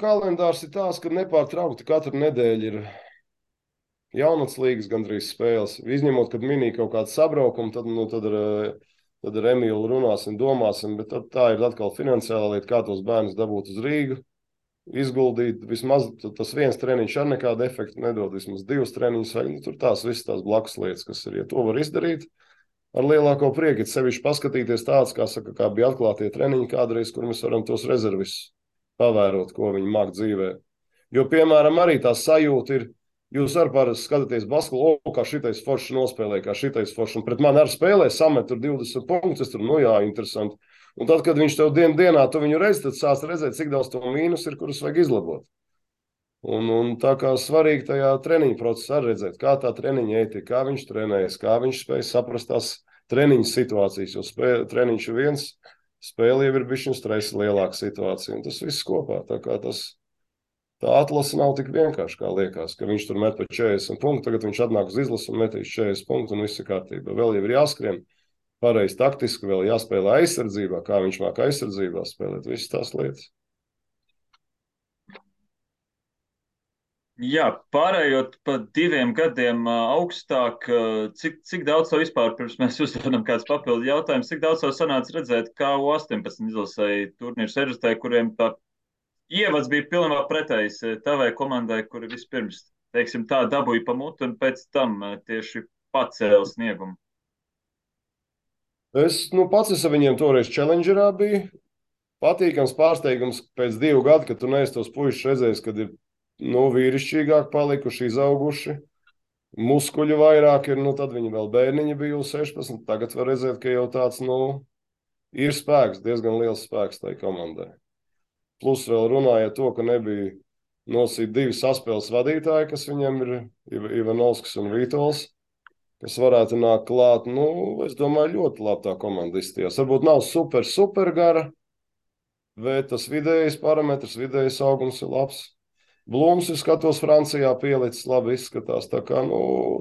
kalendārs ir tāds, ka nepārtraukti katru nedēļu ir jaunats līgas gandrīz spēles. Izņemot, kad minī kaut kādu sabraukumu, tad ar Emīlu runāsim, domāsim, bet tā ir atkal finansiāla lieta, kā tos bērnus dabūt uz Rīgu, izguldīt. Vismaz tas viens treniņš ar nekādu efektu nedod, vismaz 2 treniņus, vai tur tās visas tās blakus lietas, kas ir, ja to var izdarīt. Ar lielāko prieku, sevišķi paskatīties tāds, kā bija atklātie treniņi kādreiz, kur mēs varam tos rezervis pavērot, ko viņi māk dzīvē. Jo, piemēram, arī tā sajūta ir, jūs arī parasti skatāties basketbolu, kā šitais foršs nospēlē, kā šitais foršs, un pret mani arī spēlē, samet tur 20 punktus, es tur, interesanti. Un tad, kad viņš tev dienā, tu viņu redzi, tad sāc redzēt, cik daudz to mīnus ir, kurus vajag izlabot. Un tā kā svarīgi tajā treniņu procesā redzēt, kā tā treniņa ētika, kā viņš trenējas, kā viņš spēj saprast tās treniņu situācijas, jo treniņš ir viens, spēle jau ir bišķiņ stresa lielāka situācija, un tas viss kopā. Tā kā tā atlase nav tik vienkārši, kā liekas, ka viņš tur met pa 40 punktu, tagad viņš atnāk uz izlasu un metīs 40 punktu un viss ir kārtībā. Vēl jau ir jāskrien pareizi taktiski, vēl jāspēlē aizsardzībā, kā viņš māk aizsardzībā spēlēt, visas tās lietas. Jā, pārējot pa 2 gadiem augstāk, cik daudz to vispār, pirms mēs uzdodam kāds papildu jautājums, cik daudz to sanāca redzēt, kā U18 izlasēja turnīru seržatē, kuriem tā ievads bija pilnībā pretējs tavai komandai, kuri vispirms, teiksim tā, dabūja pa mutu un pēc tam tieši pacēla sniegumu? Es pats ar viņiem toreiz Challengerā biju. Patīkams pārsteigums pēc 2 gadu, kad tu neesi tos puišus redzējis, kad ir vīrišķīgāk palikuši, izauguši, muskuļu vairāk ir, tad viņi vēl bērniņi bija U16, tagad var redzēt, ka jau tāds, ir spēks, diezgan liels spēks tai komandai. Plus vēl runāja to, ka nebija nosīt 2 saspēles vadītāji, kas viņam ir Ivanovskis un Vītols, kas varētu nākt klāt. Es domāju, ļoti labi tā komanda izstījās. Varbūt nav super gara, bet tas vidējais parametrs, vidējais augums ir labs. Blūms, es skatos, Francijā pielicis, labi izskatās. Tā kā,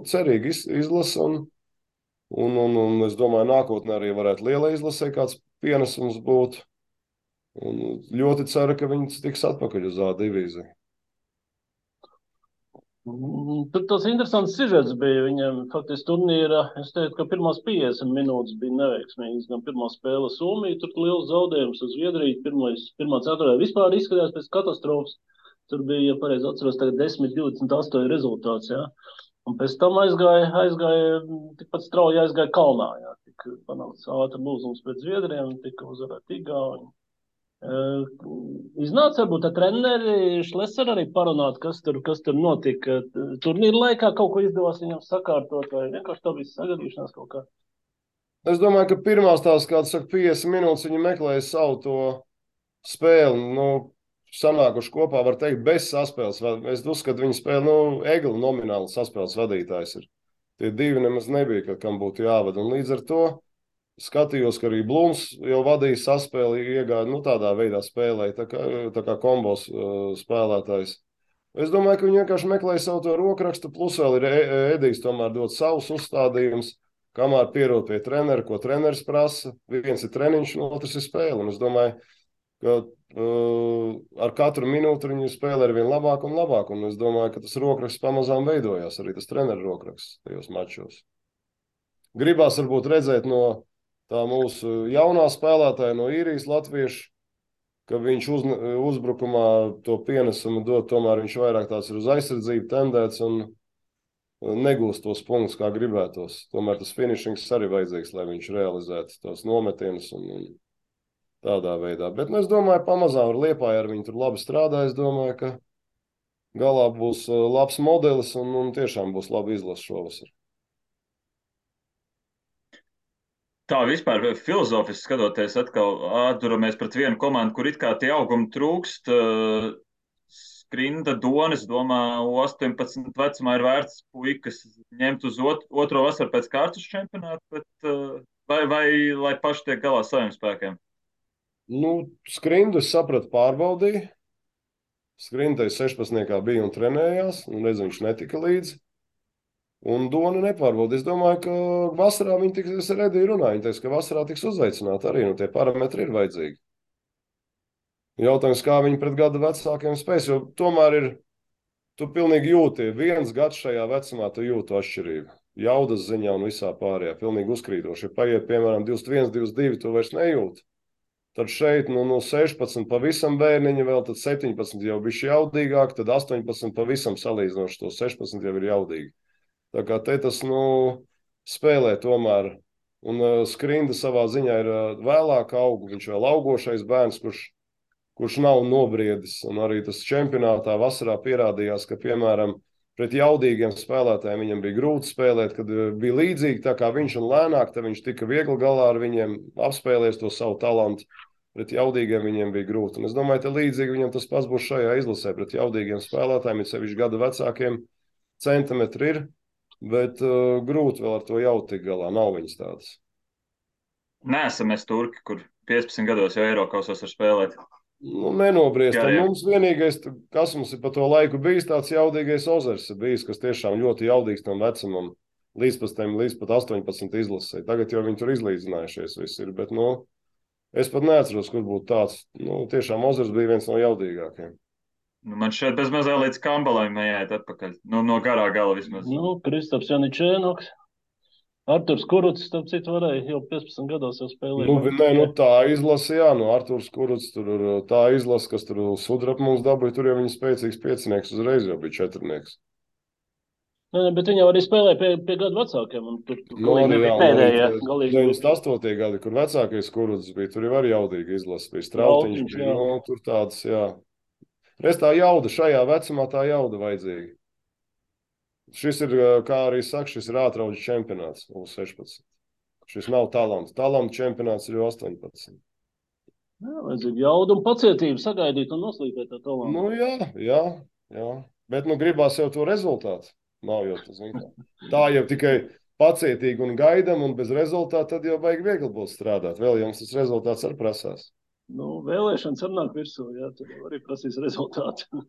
cerīgi izlasa, un es domāju, nākotnē arī varētu liela izlasē kāds pienesums būt. Un ļoti ceru, ka viņi tiks atpakaļ uz A divīziju. Tur tas interesants sižets bija viņam. Faktiski turnīra, es teiktu, ka pirmās 50 minūtes bija neveiksmīgas. Gan pirmā spēle Somija, tur liels zaudējums uz Zviedriju. Pirmā ceturtajā vispār izskatījās pēc katastrofas. Tur bija, ja pareizi atceros, tagad 10-28 rezultāts, jā. Un pēc tam aizgāja tikpat strauji aizgāja kalnā, jā. Tik panāks ātri lūzums pēc Zviedriem, tika uzvarēt Igauņi. Iznāca varbūt ar treneri Šleser arī parunāt, kas tur notika turnīra laikā, kaut ko izdevās viņam sakārtot, vai vienkārši tā bija sagadīšanās kaut kā? Es domāju, ka pirmās tās, kāds saka, 50 minūtes viņi meklēja savu to spēli. sanākuši kopā, var teikt, bez saspēles. Es uzskatu, viņi spēlē, Egli nomināli saspēles vadītājs ir. Tie divi nemaz nebija, kam būtu jāvada. Un līdz ar to skatījos, ka arī Blūms jau vadīja saspēli, iegāja, tādā veidā spēlēja, tā kā kombos spēlētājs. Es domāju, ka viņi vienkārši meklēja savu to rokrakstu, plus vēl ir Edijs tomēr dot savus uzstādījumus, kamēr pierod pie trenera, ko treneris prasa. Viens ir treniņš, un otrs ir spēle. Un es domāju, ka ar katru minūti viņi spēlē ar vien labāk un labāk. Un es domāju, ka tas rokraksts pamazām veidojās, arī tas treneru rokraksts tajos mačos. Gribās varbūt redzēt no tā mūsu jaunā spēlētāja, no īrijas latviešu, ka viņš uzbrukumā to pienesumu dod, tomēr viņš vairāk tāds ir uz aizsardzību tendēts un negūst tos punktus, kā gribētos. Tomēr tas finishings arī vajadzīgs, lai viņš realizētu tos nometienus un tādā veidā. Bet es domāju, pamazām ar Liepāju ar viņu tur labi strādā. Es domāju, ka galā būs labs modelis un tiešām būs labi izlasa šovasar. Tā vispār filozofiski skatoties, atkal atduramies pret vienu komandu, kur it kā tie augumi trūkst. Skrinda, Donis, domā, 18 vecumā ir vērts puikas ņemt uz otro vasaru pēc kārtas čempionātu, bet vai lai paši tiek galā saviem spēkiem? Skrindu es sapratu pārbaudīju. Skrinda 16. bija un trenējās, un redz, viņš netika līdzi. Un Dona nepārbauda. Es domāju, ka vasarā viņi tiks, es ar Ediju runāju, viņi teiks, ka vasarā tiks uzaicināti arī, tie parametri ir vajadzīgi. Jautājums, kā viņi pret gada vecākiem spēs, jo tomēr ir, tu pilnīgi jūti, viens gads šajā vecumā tu jūtu atšķirību. Jaudas ziņā un visā pārējā, pilnīgi uzkrītoši. Ja paiet, piemēram, 21, 22, tu vairs nejūti. Tad šeit, no 16 pavisam bērniņi vēl, tad 17 jau bišķi jaudīgāk, tad 18 pavisam salīdzinoši, to 16 jau ir jaudīgi. Tā kā te tas, spēlē tomēr. Un Skrinda savā ziņā ir vēlāk aug, viņš vēl augošais bērns, kurš nav nobriedis. Un arī tas čempionātā vasarā pierādījās, ka, piemēram, pret jaudīgiem spēlētājiem viņam bija grūti spēlēt, kad bija līdzīgi tā kā viņš un lēnāk, tad viņš tika viegli galā ar viņiem, apspēlēs to savu talantu. Pret jaudīgiem viņiem bija grūti. Un es domāju, ka līdzīgi viņam tas pats būs šajā izlasē. Pret jaudīgiem spēlētājiem, ir sevišķi gada vecākiem, centimetri ir. Bet grūti vēl ar to jau tik galā. Nav viņas tādas. Neesam mēs turki, kur 15 gados jau Eirokausos var spēlēt. Nenobriest. Mums vienīgais, kas mums ir pa to laiku bijis, tāds jaudīgais Ozers ir bijis, kas tiešām ļoti jaudīgs tam vecumam. Līdz pat 18 izlasē. Tagad jau viņi tur izlīdzinājušies visi ir. Bet, es pat neatceros, kur būtu tāds. Tiešām Ozers bija viens no jaudīgākajiem. Man šeit bez mazā līdz Kambalai jāiet atpakaļ. No garā gala vismaz. Kristaps Janičēnoks. Arturs Kurucs, starp citu, varēja jau 15 gados jau spēlēt. Tā izlase, jā. Arturs Kurucs, tur tā izlase, kas tur sudrap mums dabūja, tur jau viņa spēcīgs piecinieks uzreiz jau bija četrnieks. Bet viņi jau arī spēlēja pie gadu vecākiem. Un tur bija pēdējie. 98. gadi, kur vecākais Kurucs bija, tur jau arī jaudīgi izlase bija. Strautiņš bija, tur tāds, jā. Reiz tā jauda, šajā vecumā tā jauda vajadzīga. Šis ir, kā arī saka, šis ir ātrauģis čempionāts U16. Šis nav talants. Talanta čempionāts ir U18. Jā, vajadzīga jauda un pacietība sagaidīt un noslīpēt tā talantu. Jā. Bet gribās jau to rezultātu. Nav jau tas, tā jau tikai pacietīgi un gaidam un bez rezultāta, tad jau baigi viegli būs strādāt. Vēl jums tas rezultāts arī prasās. Vēlēšanas var nāk virsū, jā, tur arī prasīs rezultātu.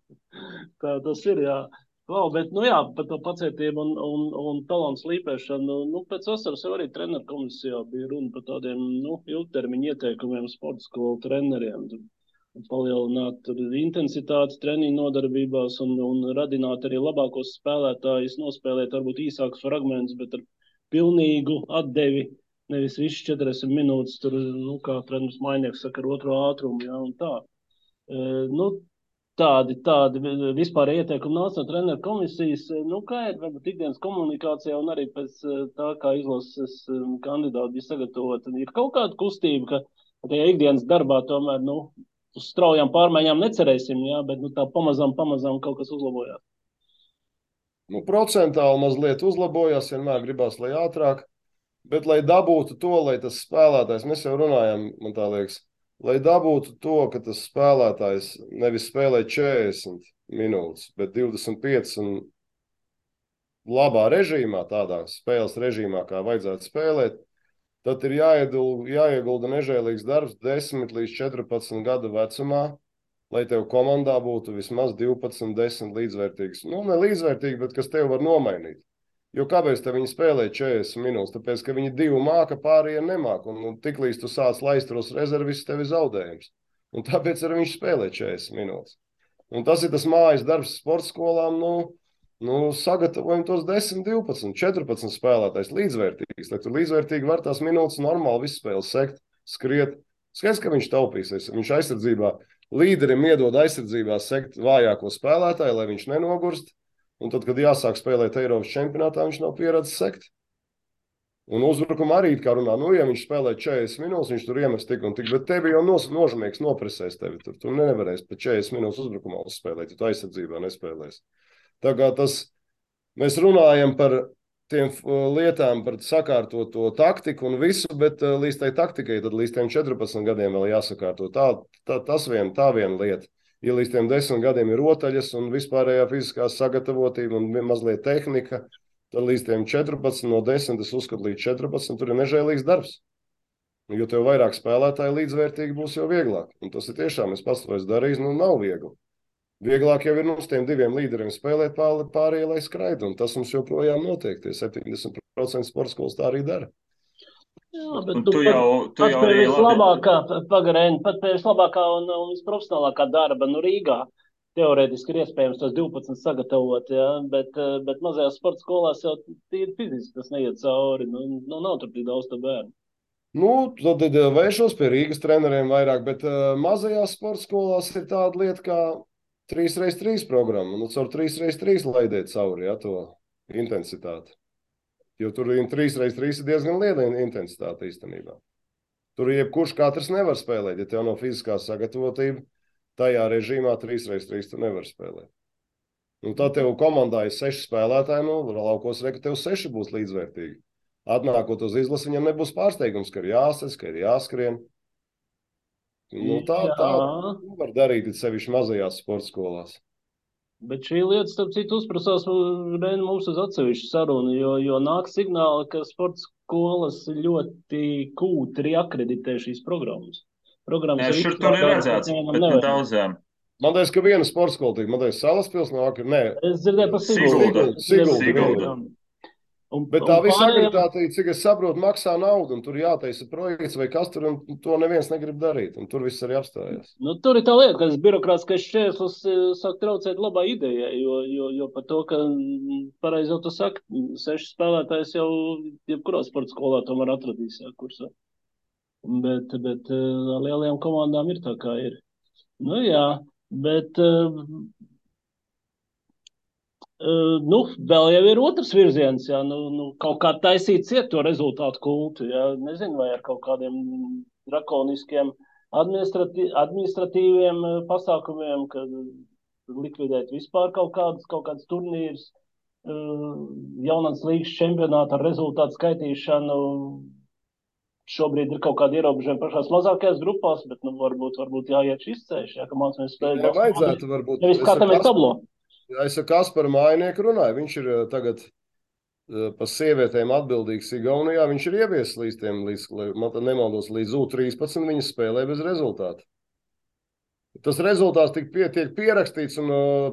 Tā tas ir, jā. Bet, par to pacietību un talantu slīpēšanu, pēc vasaras jau arī treneru komisijā bija runa par tādiem, ilgtermiņa ieteikumiem sporta skolu treneriem. Palielināt intensitātes treniņu nodarbībās un radināt arī labākos spēlētājus, nospēlēt varbūt īsākus fragmentus, bet ar pilnīgu atdevi. Nevis viss 40 minūtes, tur, kā treneris Mainieks saka, ar otro ātrumu, jā, un tā. Tādi vispār ieteikumi nāca no treneru komisijas, kā ir varbūt ikdienas komunikācijā un arī pēc tā, kā izlases kandidāti bija sagatavoti. Ir kaut kāda kustība, ka tajā ikdienas darbā tomēr, uz straujām pārmaiņām necerēsim, jā, bet tā pamazām kaut kas uzlabojās. Procentāli mazliet uzlabojās, vienmēr gribās, lai ātrāk. Bet, lai dabūtu to, lai tas spēlētājs, mēs jau runājam, man tā liekas, lai dabūtu to, ka tas spēlētājs nevis spēlē 40 minūtes, bet 25 un labā režīmā, tādā spēles režīmā, kā vajadzētu spēlēt, tad ir jāiegulda nežēlīgs darbs 10 līdz 14 gadu vecumā, lai tev komandā būtu vismaz 12, 10 līdzvērtīgs. Nu, ne līdzvērtīgi, bet kas tev var nomainīt. Jo kāpēc te viņi spēlē 40 minūtes? Tāpēc, ka viņi 2 māka, pārējie nemāka. Un tiklīdz tu sāc laist tos rezervis, tev ir zaudējums. Un tāpēc arī viņš spēlē 40 minūtes. Un tas ir tas mājas darbs sporta skolām, sagatavojam tos 10, 12, 14 spēlētājs līdzvērtīgs, lai tur līdzvērtīgi var tās minūtes normāli visu spēli sekt, skriet. Skaidrs, ka viņš taupīsies. Viņš aizsardzībā, līderim iedod aizsardzībā sekt vājāko spēlētāju, lai viņš nenogurst. Un tad, kad jāsāk spēlēt Eiropas čempionātā, viņš nav pieredzējis sekt. Un uzbrukumā arī, kā runā, ja viņš spēlē 40 minūtes, viņš tur iemes tik un tik, bet tevi jau nožmīgs nopresēs tevi. Tu nevarēsi pat 40 minūtes uzbrukumā uzspēlēt, ja tu aizsardzībā nespēlēsi. Tā kā mēs runājam par tiem lietām, par sakārtoto taktiku un visu, bet līdz tai taktikai, tad līdz tiem 14 gadiem vēl jāsakārto. Tā viena lieta. Ja līdz tiem 10 gadiem ir rotaļas un vispārējā fiziskā sagatavotība un mazliet tehnika, tad līdz tiem 14, no 10, es uzskatu līdz 14, tur ir nežēlīgs darbs. Jo tev vairāk spēlētāji līdzvērtīgi būs jau vieglāk. Un tas ir tiešām, es pats to esmu darījis, nav viegli. Vieglāk jau ir uz tiem 2 līderiem spēlēt pārējie, lai skraida. Un tas mums joprojām notiek. Tie 70% sporta skolas tā arī dara. Jā, bet tu jau arī vislabākā, pagarēni, pat pie vislabākā un visprofesionālākā darba, Rīgā teorētiski ir iespējams tos 12 sagatavot, ja? Bet mazajās sporta skolās jau tīri fiziski tas neiet cauri, nav tur tik daudz to bērnu. Tad vēršos pie Rīgas treneriem vairāk, bet mazajās sporta skolās ir tāda lieta kā 3x3 programma, caur 3x3 laidiet cauri, ja, to intensitāti. Jo tur 3x3 ir diezgan liela intensitāte īstenībā. Tur jebkurš katrs nevar spēlēt. Ja tev nav fiziskā sagatavotība, tajā režīmā 3x3 tu nevar spēlēt. Tad tev komandā ir 6 spēlētāji, laukos reka tev 6 būs līdzvērtīgi. Atnākot uz izlasi, viņam nebūs pārsteigums, ka ir jāsas, ka ir jāskrien. Tā var darīt sevišķi mazajās sporta skolās. Bet šī lieta, starp citu, uzprasās mums uz atsevišķu sarunu, jo nāk signāli, ka sporta skolas ļoti kūtri akreditē šīs programmas. Šur tur ir redzēts, bet ne daudzām. Man liekas, ka viena sporta skola tika, man liekas, Salaspils nāk, nē. Es dzirdēju par Siguldu. Bet tā visa akreditācija, cik es saprotu, maksā naudu, un tur jātaisa projekts vai kas tur, un to neviens negrib darīt, un tur viss arī apstājās. Tur ir tā lieta, ka tas birokrātiskais šķērslis sāk traucēt labā idejai, jo par to, ka pareizi jau tu saki, 6 spēlētājs jau jebkurā sporta skolā tomēr atradīs, kursā. Bet lielajām komandām ir tā, kā ir. Jā, bet... vēl jau ir otrs virziens, jā, kaut kā taisīt ciet to rezultātu kultu, jā, nezinu, vai ar kaut kādiem drakoniskiem administratīviem pasākumiem, kad likvidēt vispār kaut kādas turnīras, jaunās līgas čempionāta ar rezultātu skaitīšanu. Šobrīd ir kaut kādi ierobežojumi pašās mazākajās grupās, bet varbūt jāiet šis ceļš, ja, ka mācāmies spēlēt. Vajadzētu varbūt. Nevis skatāmies tablo. Es ar Kasparu Mājnieku runāju. Viņš ir tagad par sievietēm atbildīgs Igaunijā. Viņš ir ieviesis līdz U13. Viņa spēlē bez rezultāta. Tas rezultāts tiek pierakstīts un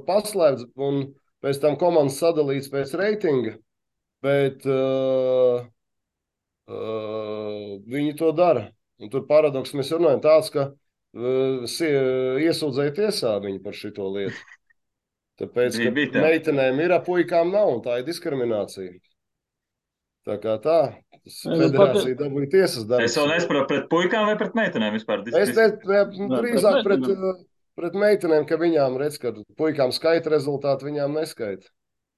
paslēpts, un pēc tam komandas sadalīts pēc reitinga. Bet viņi to dara. Un tur paradoks mēs runājam tāds, ka iesūdzēja tiesā viņi par šito lietu. Tāpēc, ka meitenēm ir, puikām nav, un tā ir diskriminācija. Tā kā federācija dabūja tiesas darbs. Es vēl nesaprotu pret puikām vai pret meitenēm vispār? Es drīzāk pret meitenēm, ka viņām redz, ka puikām skaita rezultāti, viņām neskaita.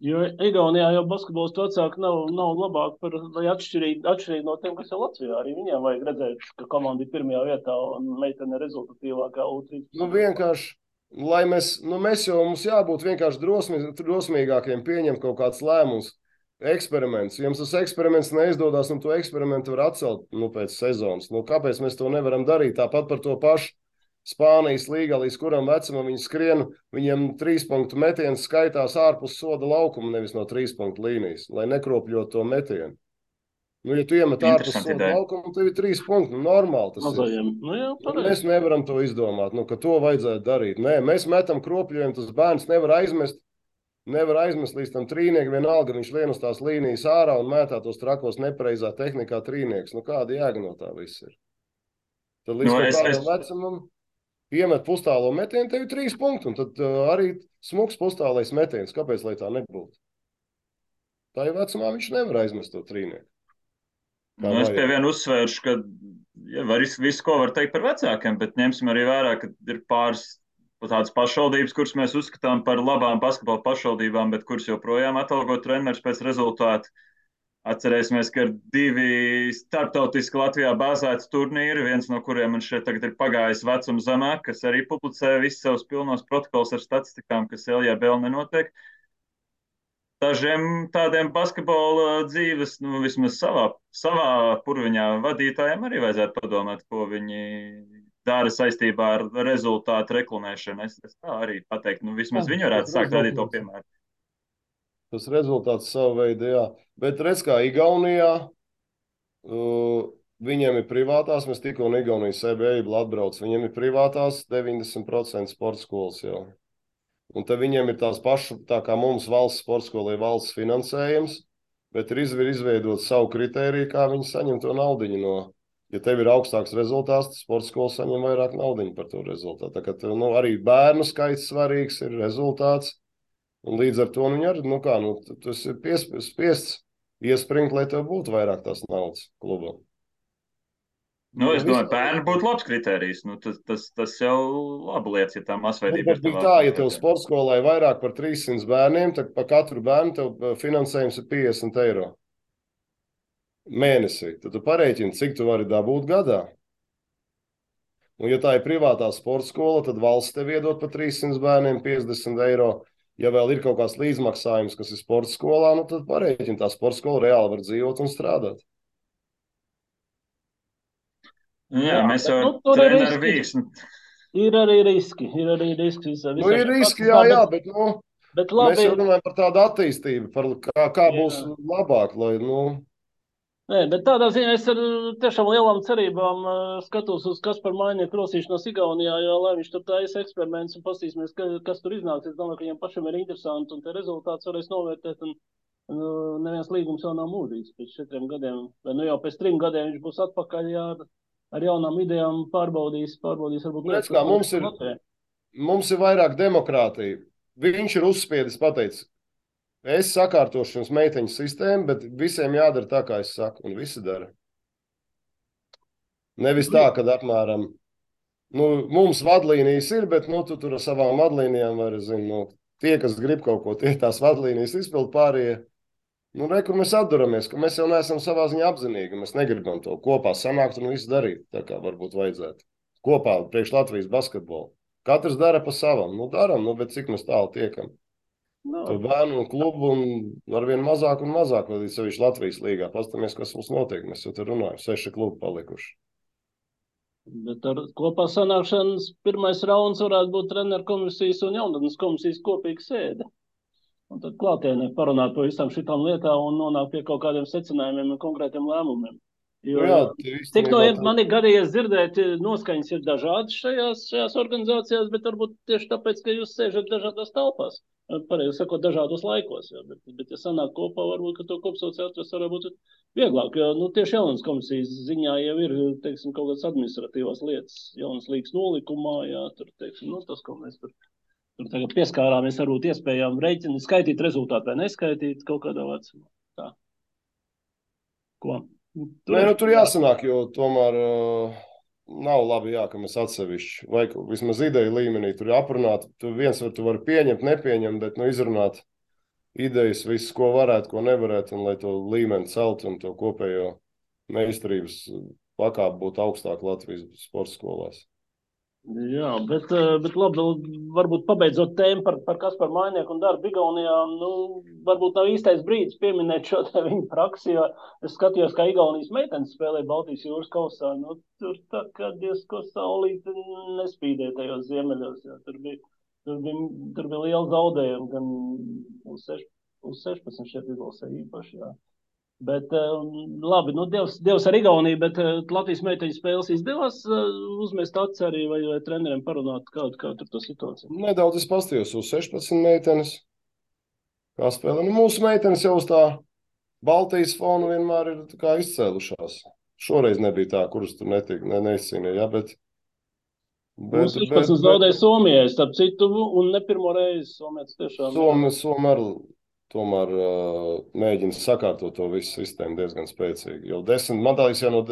Jo Igaunijā jau basketbols vecāki nav labāk vai atšķirīgi no tiem, kas ir Latvijā. Arī viņiem vajag redzēt, ka komanda ir pirmajā vietā un meitene rezultatīvākā U13. Vienkārši. Mums jābūt vienkārši drosmīgākiem pieņemt kaut kāds lēmums. eksperiments. Jums tas eksperiments neizdodas, un to eksperimentu var atcelt pēc sezonas. Kāpēc mēs to nevaram darīt? Tāpat par to pašu Spānijas līgā, līdz kuram vecumam viņi skrien, viņiem 3 punktu metiens skaitās ārpus soda laukuma, nevis no 3 punktu līnijas, lai nekropļot to metienu. Ja tu iemet ārpus soda laukumu, tev ir 3 punkti. Normāli tas Mazajiem. ir. Mēs nevaram to izdomāt, ka to vajadzētu darīt. Nē, mēs metam kropļojumu, tas bērns nevar aizmest līdz tam trīniekam, vienalga viņš lien uz tās līnijas ārā un mētā tos trakos nepareizā tehnikā trīnieks. Kāda jēga no tā viss ir? Tad līdz kādam vecumam iemet pustālo metienu, tev ir 3 punkti, un tad arī smuks pustālais metiens. Kāpēc, lai tā nebūtu? Tā jau vecumā viņš nevar aizmest to trīnieku. Es pie viena uzsvēršu, ka visu, ko var teikt par vecākiem, bet ņemsim arī vērā, ka ir pāris tādas pašvaldības, kuras mēs uzskatām par labām basketbola pašvaldībām, bet kuras joprojām atalgo treneris pēc rezultātu. Atcerēsimies, ka ir 2 starptautiski Latvijā bāzēti turnīri, viens no kuriem man šeit tagad ir pagājis vecums zemāk, kas arī publicē visus savus pilnos protokols ar statistikām, kas LJBL nenotiek. Dažiem tādiem basketbola dzīves, vismaz savā purviņā vadītājiem arī vajadzētu padomāt, ko viņi dara saistībā ar rezultātu reklamēšanu. Es tā arī pateiktu, vismaz viņi varētu sākt rādīt to piemēru. Tas rezultāts savu veidu, jā. Bet redz, kā Igaunijā, viņiem ir privātās, mēs tikko un Igaunijas EBA atbrauc, viņiem ir privātās 90% sporta skolas jau. Un te viņiem ir tās pašas, tā kā mums valsts sporta skolai valsts finansējums, bet ir izveidot savu kritēriju, kā viņi saņem to naudiņu no. Ja tev ir augstāks rezultāts, tad sporta skola saņem vairāk naudiņu par to rezultātu. Tā kā tev, arī bērnu skaits svarīgs ir rezultāts, un līdz ar to viņi arī, tas ir spiests iespringt, lai tev būtu vairāk tās naudas klubam. Es domāju, bērni būtu labs kritērijs. Tas jau labu lietas, ja tā masveidība ir tā, ja tev sporta skolā ir vairāk par 300 bērniem, tad pa katru bērnu tev finansējums ir 50 eiro mēnesī. Tad tu parēķini, cik tu vari dabūt gadā. Un ja tā ir privātā sporta skola, tad valsts tev iedod pa 300 bērniem 50 eiro. Ja vēl ir kaut kāds līdzmaksājums, kas ir sporta skolā, tad parēķini, tā sporta skola reāli var dzīvot un strādāt. Jā, mēs jau treneru vīksni. Ir arī riski. Ir riski, jā, bet labi, mēs jau runājam par tādu attīstību, par kā būs labāk, lai, Nē, bet tādā ziņā es ar tiešām lielām cerībām skatos uz Kasparu Mainieku rosīšanos Igaunijā, jo lai viņš tur taisa eksperiments un pastīsimies, kas tur iznāks. Es domāju, ka viņam pašam ir interesanti un te rezultāts varēs novērtēt. Un neviens līgums jau nav mūžīgs pēc 4 gadiem, vai jau pēc 3 gadiem viņš būs atpakaļ ar jaunām idejām pārbaudīs varbūt lietas, kā mums ir vairāk demokrātija. Viņš ir uzspiedis pateicis, es sakārtošu jums meiteņu sistēmu, bet visiem jādara tā, kā es saku, un visi dara. Nevis tā, kad apmēram, mums vadlīnijas ir, bet tu tur ar savām vadlīnijām vari, tie, kas grib kaut ko, tie tās vadlīnijas izpild pārējie. Kur mēs atduramies, ka mēs jau neesam savā ziņā apzinīgi, mēs negribam to kopā sanākt un visu darīt, tā kā varbūt vajadzētu. Kopā priekš Latvijas basketbolu. Katrs dara pa savam, daram, bet cik mēs tālu tiekam. To bērnu un klubu un arvien mazāk un mazāk, līdz sevišķi Latvijas līgā. Pastamies, kas mums notiek, mēs jau te runājam, 6 klubi palikuši. Bet ar kopā sanākšanas pirmais rauns varētu būt treneru komisijas un jaunatnes komisijas kopīga sēde. Un tad klātienē parunāt par visām šitām lietām un nonākt pie kaut kādiem secinājumiem un konkrētiem lēmumiem. Cik no man ir gadījies dzirdēt, noskaņas ir dažādas šajās organizācijās, bet varbūt tieši tāpēc, ka jūs sēžat dažādās telpās, pareizi sakot, dažādos laikos. Bet ja sanāk kopā, varbūt, ka to kopsaucēju atrast varētu būt vieglāk, jo tieši jaunas komisijas ziņā jau ir, teiksim, kaut kādas administratīvās lietas, jaunas līgas nolikumā, tur, teiksim, tas, ko mēs tur tagad pieskārāmies, varbūt iespējām rēķini, skaitīt rezultātu vai neskaitīt kaut kādā vecumā. Tā. Ko? Tur jāsanāk, jo tomēr nav labi, ka mēs atsevišķi, vai vismaz ideju līmenī tur aprunāt. Tu vari pieņemt, nepieņemt, bet izrunāt idejas, visu, ko varētu, ko nevarētu, un lai to līmeni celt un to kopējo meistarības pakāpi būtu augstāk Latvijas sporta skolās. Jā, bet labi, varbūt pabeidzot tēmu par Kasparu Mainieku un darbu Igaunijā, varbūt nav īstais brīdis pieminēt šo te viņu praksi, jo es skatījos, kā Igaunijas meitenes spēlē Baltijas jūras kausā, tur tā kā diezko saulīti nespīdēja tajos ziemeļos, jo tur bija liela zaudējuma, gan uz 16 šeit izlasē īpaši, jā. Bet labi, Dievs ar Igauniju, bet Latvijas meiteņu spēles izdevās uzmest acis arī vai treneriem parunāt, kā tur tā situācija? Nedaudz es pastījos uz 16 meitenes. Kā spēlē? Mūsu meitenes jau uz tā Baltijas fonu vienmēr ir kā izcēlušās. Šoreiz nebija tā, kuras tur neizcīnīja, ja, bet 16 zaudēja Somijai, starp citu, un ne pirmo reizi Somietis tiešām. Somi tomēr mēģina sakārtot to visu sistēmu diezgan spēcīgi. Jau 10, man tā liekas, jau no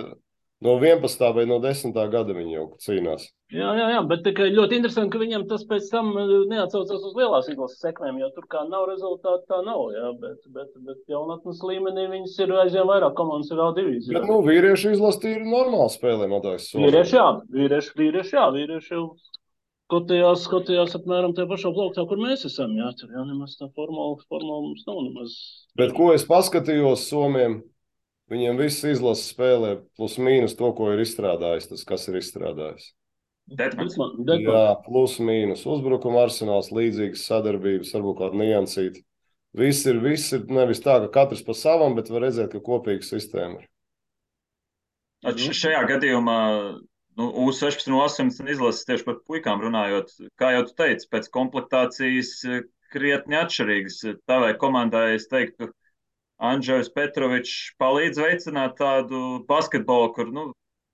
11. vai no 10. gada viņi jau cīnās. Jā, bet tikai ļoti interesanti, ka viņam tas pēc tam neatsaucās uz lielās izlases sekmēm, jo tur kā nav rezultāti, tā nav, jā, bet jaunatnes līmenī viņas ir aizvien vairāk komandas ir A2. Bet, vīrieši izlase ir normāli spēlē, man liekas. Vīrieši jau skatījās apmēram tajā pašā plauktā, kur mēs esam, jā, tur jau nemaz tā formāla mums nav nemaz. Bet ko es paskatījos Somiem, viņiem viss izlases spēlē plus mīnus to, ko ir izstrādājis, tas, kas ir izstrādājis. Jā, plus mīnus. Uzbrukuma arsenāls, līdzīgas sadarbības, varbūt kāda niansīta. Viss ir nevis tā, ka katrs pa savam, bet var redzēt, ka kopīga sistēma ir. Šajā gadījumā U16 un U18 izlases tieši par puikām runājot, kā jau tu teici, pēc komplektācijas krietni atšķirīgas. Tavai komandai es teiktu, Andžejs Petrovičs palīdz veicināt tādu basketbolu, kur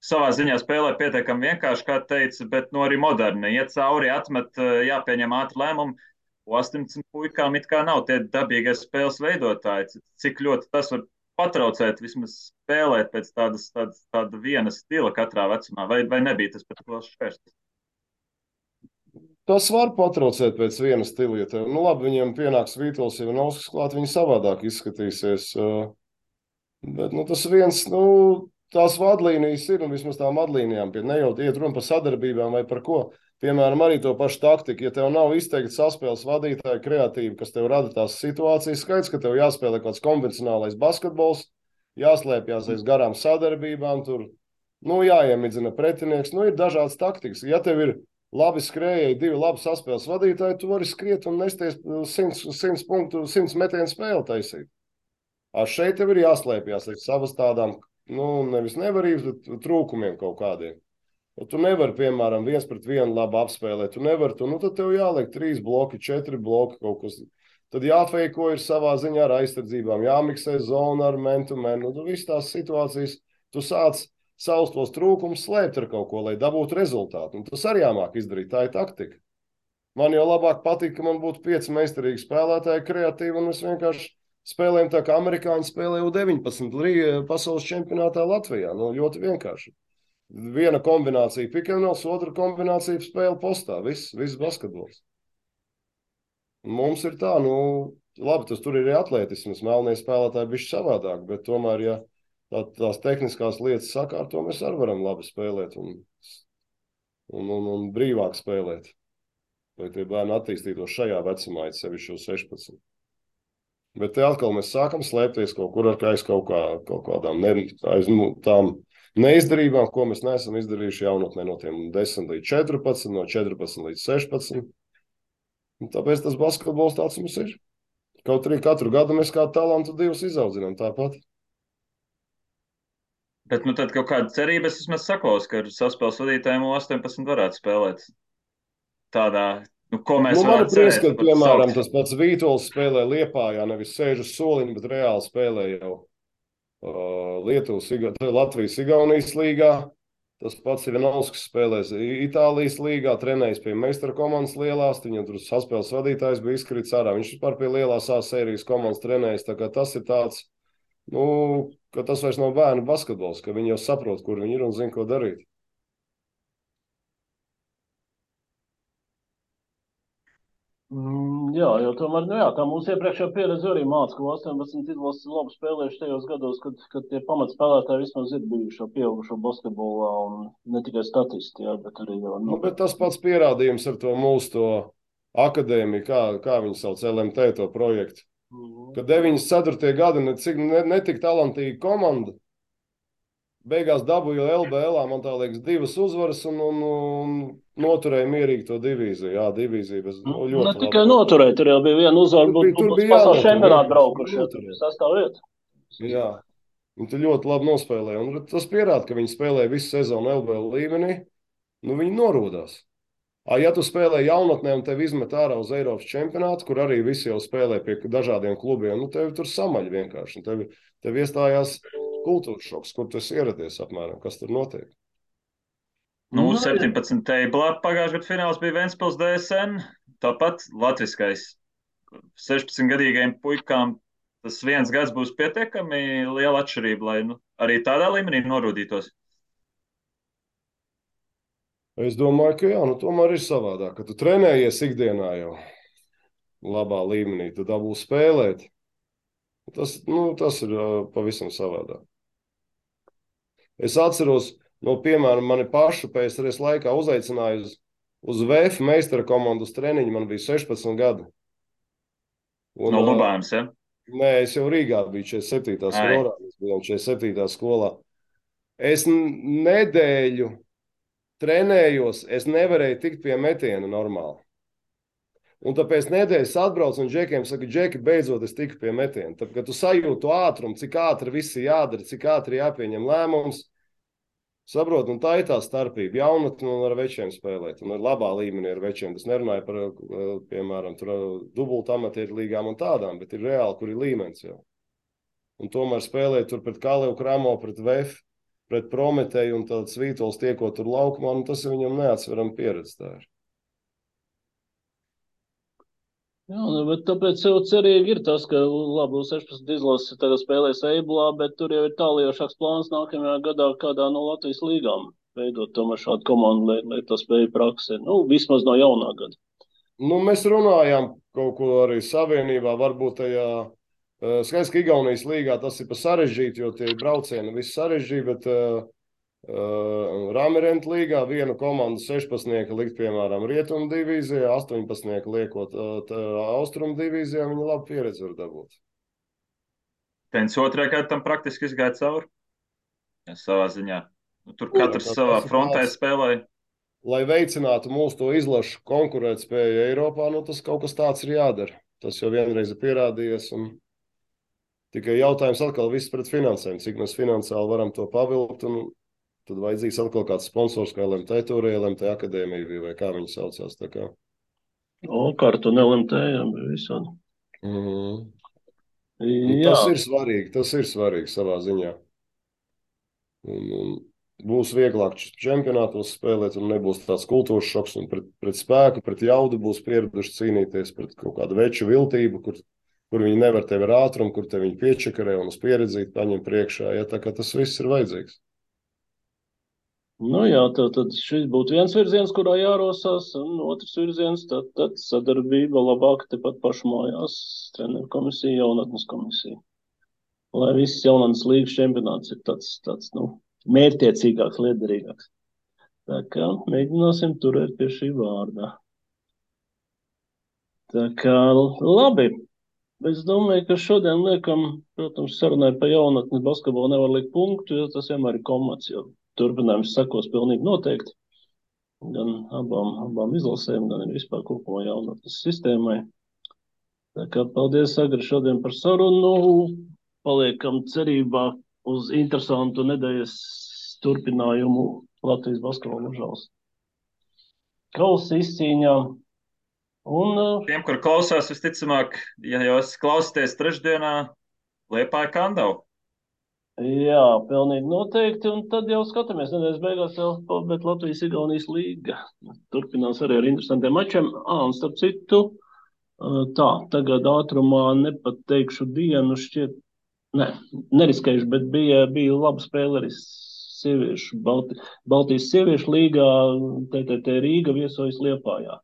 savā ziņā spēlē pietiekami vienkārši, kā teica, bet arī moderni. Iet cauri, atmet, jāpieņem ātri lēmumi. U18 puikām it kā nav tie dabīgie spēles veidotāji. Cik ļoti tas var patraucēt, vismaz spēlēt pēc tāda viena stila katrā vecumā, vai nebija tas pat liels šķērslis? Tas var patraucēt pēc viena stila, ja tev, labi, viņiem pienāks Vītols, ja Nauskas klāt, viņi savādāk izskatīsies. Bet, tas viens, tās vadlīnijas ir, un vismaz tām vadlīnijām, ne jau iet runa par sadarbībām vai par ko. Piemēram, arī to pašu taktiku, ja tev nav izteikti saspēles vadītāji kreatīvi, kas tev rada tās situācijas, skaidrs, ka tev jāspēlē kāds konvencionālais basketbols, jāslēpjas aiz garām sadarbībām, tur, jāiemidzina pretinieks, ir dažādas taktikas. Ja tev ir labi skrējēji, 2 labi saspēles vadītāji, tu vari skriet un nesties 100 punktu, 100 metienu spēli taisīt. Šeit tev ir jāslēpjas aiz savas tādām, nevis nevarības, bet trūkumiem kaut kādiem. Tu nevari, piemēram, 1 pret 1 labi apspēlēt. Tu nevari, tad tev jāliek 3 bloki, 4 bloki kaut kas. Tad jāfeiko ir savā ziņā ar aizsardzībām, jāmiksē zona ar man-to-man. Viss tās situācijas, tu sāc savus tos trūkumus slēpt ar kaut ko, lai dabūtu rezultātu. Tas arī jāmāk izdarīt, tā ir taktika. Man jau labāk patīk, ka man būtu 5 meistarīgi spēlētāji, kreatīvi, un mēs vienkārši spēlējam tā, kā amerikāņi spēlē U19 pasaules čempionātā Latvijā. Ļoti vienkārši. Viena kombinācija pick-and-rolls, otra kombinācija spēle postā. Viss basketbols. Mums ir tā, labi, tas tur ir atletisms, melnie spēlētāji bišķi savādāk, bet tomēr, ja tās tehniskās lietas sakārto, mēs arī varam labi spēlēt un brīvāk spēlēt. Lai tie bērni attīstītos šajā vecumā, sevišķi 16. Bet te atkal mēs sākam slēpties kaut kur aiz kaut kādām tām neizdarībām, ko mēs neesam izdarījuši jaunatnē no tiem 10 līdz 14, no 14 līdz 16. Un tāpēc tas basketbols tāds mums ir. Kaut arī katru gadu mēs kā talantu 2 izaudzinām tāpat. Bet tad kaut kāda cerība es vismaz saklaus, ka ar saspēles vadītājiem 18 varētu spēlēt tādā, ko mēs varam cerēt. Prieskat, piemēram, tas pats Vītols spēlē Liepājā, nevis sēž uz soliņa, bet reāli spēlē jau Latvijas-Igaunijas līgā. Tas pats ir Nauskas spēlēs Itālijas līgā, trenējis pie meistara komandas lielās, viņam tur saspēles vadītājs bija izkrits ārā. Viņš vispār pie lielās A sērijas komandas trenējis, tā kā tas ir tāds, ka tas vairs nav bērnu basketbols, ka viņi jau saprot, kur viņi ir un zina, ko darīt. Jā, jo tomēr, tā mūsu iepriekšējā pieredze arī māca, ka 18 izlases labi spēlējuši tajos gados, kad tie pamatspēlētāji vismaz ir bijuši pieaugušo basketbolā un ne tikai statisti, bet arī jau Bet tas pats pierādījums ar to mūsu akadēmiju, kā viņi sauc LMT to projektu. Kad 94. gadi netik talantīga komanda, beigās dabūju LBL, man tā liekas, 2 uzvaras un noturēja mierīgi to divīziju. Jā, divīzija bez ļoti ne tikai noturēja, tur jau bija viena uzvara, tur bija pasaules čempionāta braukuši, sastāv vieta. Jā, un tu ļoti labi nospēlēji. Un tas pierāda, ka viņi spēlēja visu sezonu LBL līmenī, viņi norūdās. Ja tu spēlē jaunatnē un tevi izmet ārā uz Eiropas čempionātu, kur arī visi jau spēlē pie dažādiem klubiem, tevi tur samaļ vienkārši. Tev iestājās kultūras šoks, kur tu esi ieradies apmēram, kas tur notiek. 17. teiblā pagājušajā gadā fināls bija Ventspils DSN, tāpat latviskais 16-gadīgajiem puikām. Tas 1 gads būs pietiekami liela atšķirība, lai arī tādā līmenī norūdītos. Es domāju, ka jā, tomēr ir savādāk, ka tu trenējies ikdienā jau labā līmenī, tu dabūsi spēlēt. Tas ir pavisam savādāk. Es atceros, piemēram, mani pašu PSRS laikā uzaicināja uz VF meistara komandas treniņu, man bija 16 gadi. No Lubānas, ja? Nē, es jau Rīgā biju 47. skolā, mēs bijām 47. skolā. Es nedēļu trenējos, es nevarēju tikt pie metiena normāli. Un tāpēc nedēļas atbraucu un džekiem saka, džeki, beidzot es tiku pie metiena. Tad, kad tu sajūtu ātrumu, cik ātri viss jādara, cik ātri jāpieņem lēmums, saprot, un tā ir tā starpība. Jaunatni un ar večiem spēlēt, un ar labā līmenī ar večiem. Tas nerunāja par, piemēram, dubultu amatieru līgām un tādām, bet ir reāli, kur ir līmenis jau. Un tomēr spēlēt tur pret Kalevu Kramo, pret VF, pret Prometēju un tad Svītols tiekot tur laukumā, tas ir viņam neatsveram pieredze tā ir. Jā, bet tāpēc jau cerīgi ir tas, ka labi, 16 izlases tagad spēlēs Eiblā, bet tur jau ir tāliejošāks plāns nākamajā gadā kādā no Latvijas līgām veidot tomēr šādu komandu, lai tas spēja praksē. Vismaz no jaunā gada. Mēs runājām kaut ko arī savienībā, varbūt tajā skaidrs, ka Igaunijas līgā tas ir pa sarežģīti, jo tie braucieni viss sarežģīti, bet Ramirenta līgā vienu komandu 16 likt, piemēram, Rietumu divīzijā, 18 liekot Austrumu divīzijā, viņi labu pieredzi var dabūt. Pēc otrajā gadā tam praktiski izgāja cauri, savā ziņā. Tur katrs savā frontē spēlēja. Lai veicinātu mūsu to izlašu konkurētspēju Eiropā, tas kaut kas tāds ir jādara. Tas jau vienreiz ir pierādījies un tikai jautājums atkal viss pret finansēm, cik mēs finansiāli varam to pavilkt, un tad vajadzīgs atkal kāds sponsors, kā LMT turēja, LMT akadēmija bija, vai kā viņi saucās, tā kā. Kartu un LMT, jā, bija visādi. Tas ir svarīgi savā ziņā. Un būs vieglāk čempionātos spēlēt, un nebūs tāds kultūras šoks, un pret spēku, pret jaudu būs pieraduši cīnīties pret kaut kādu veču viltību, kur viņi nevar tevi ar ātrumu, kur te viņi piečakarē un uz pieredzīt paņem priekšā, ja tā kā tas viss ir vajadzīgs. Jā, tad šis būtu viens virziens, kurā jārosās, un otrs virziens, tad sadarbība labāk tepat pašu mājās, treneru komisija, jaunatnes komisija. Lai viss jaunatnes līgas čempionāts ir tāds mērķtiecīgāks, liederīgāks. Tā kā mēģināsim turēt pie šī vārdā. Tā kā labi. Es domāju, ka šodien liekam, protams, sarunai pa jaunatnes basketbolu nevar likt punktu, jo tas vienmēr ir komats, jo turpinājums sekos pilnīgi noteikti. Gan abām izlasēm, gan vispār kopumā jaunatnes sistēmai. Tā kā paldies, Agri, šodien par sarunu. Paliekam cerībā uz interesantu nedēļas turpinājumu Latvijas basketbola mužās kausa izcīņā. Tiem, kur klausās, visticamāk, ja jūs klausāties trešdienā, Liepāja Kandavu. Jā, pilnīgi noteikti, un tad jau skatāmies nedēļas beigās jau, bet Latvijas Igaunijas līga turpinās arī ar interesantiem mačiem. Un starp citu, tagad ātrumā nepateikšu dienu šķiet, neriskējuši, bet bija laba spēle arī sieviešu, Baltijas sieviešu līgā, TTT Rīga viesojas Liepājā.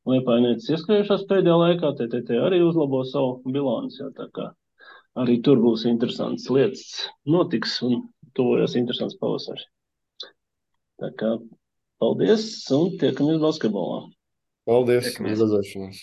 Liepājnieces ieskrējušās pēdējā laikā, TTT arī uzlabo savu bilanci, tā kā arī tur būs interesants lietas notiks un tuvojas interesants pavasars. Tā kā paldies un tiekamies basketbolā. Paldies, uz Tiekamies. redzēšanos.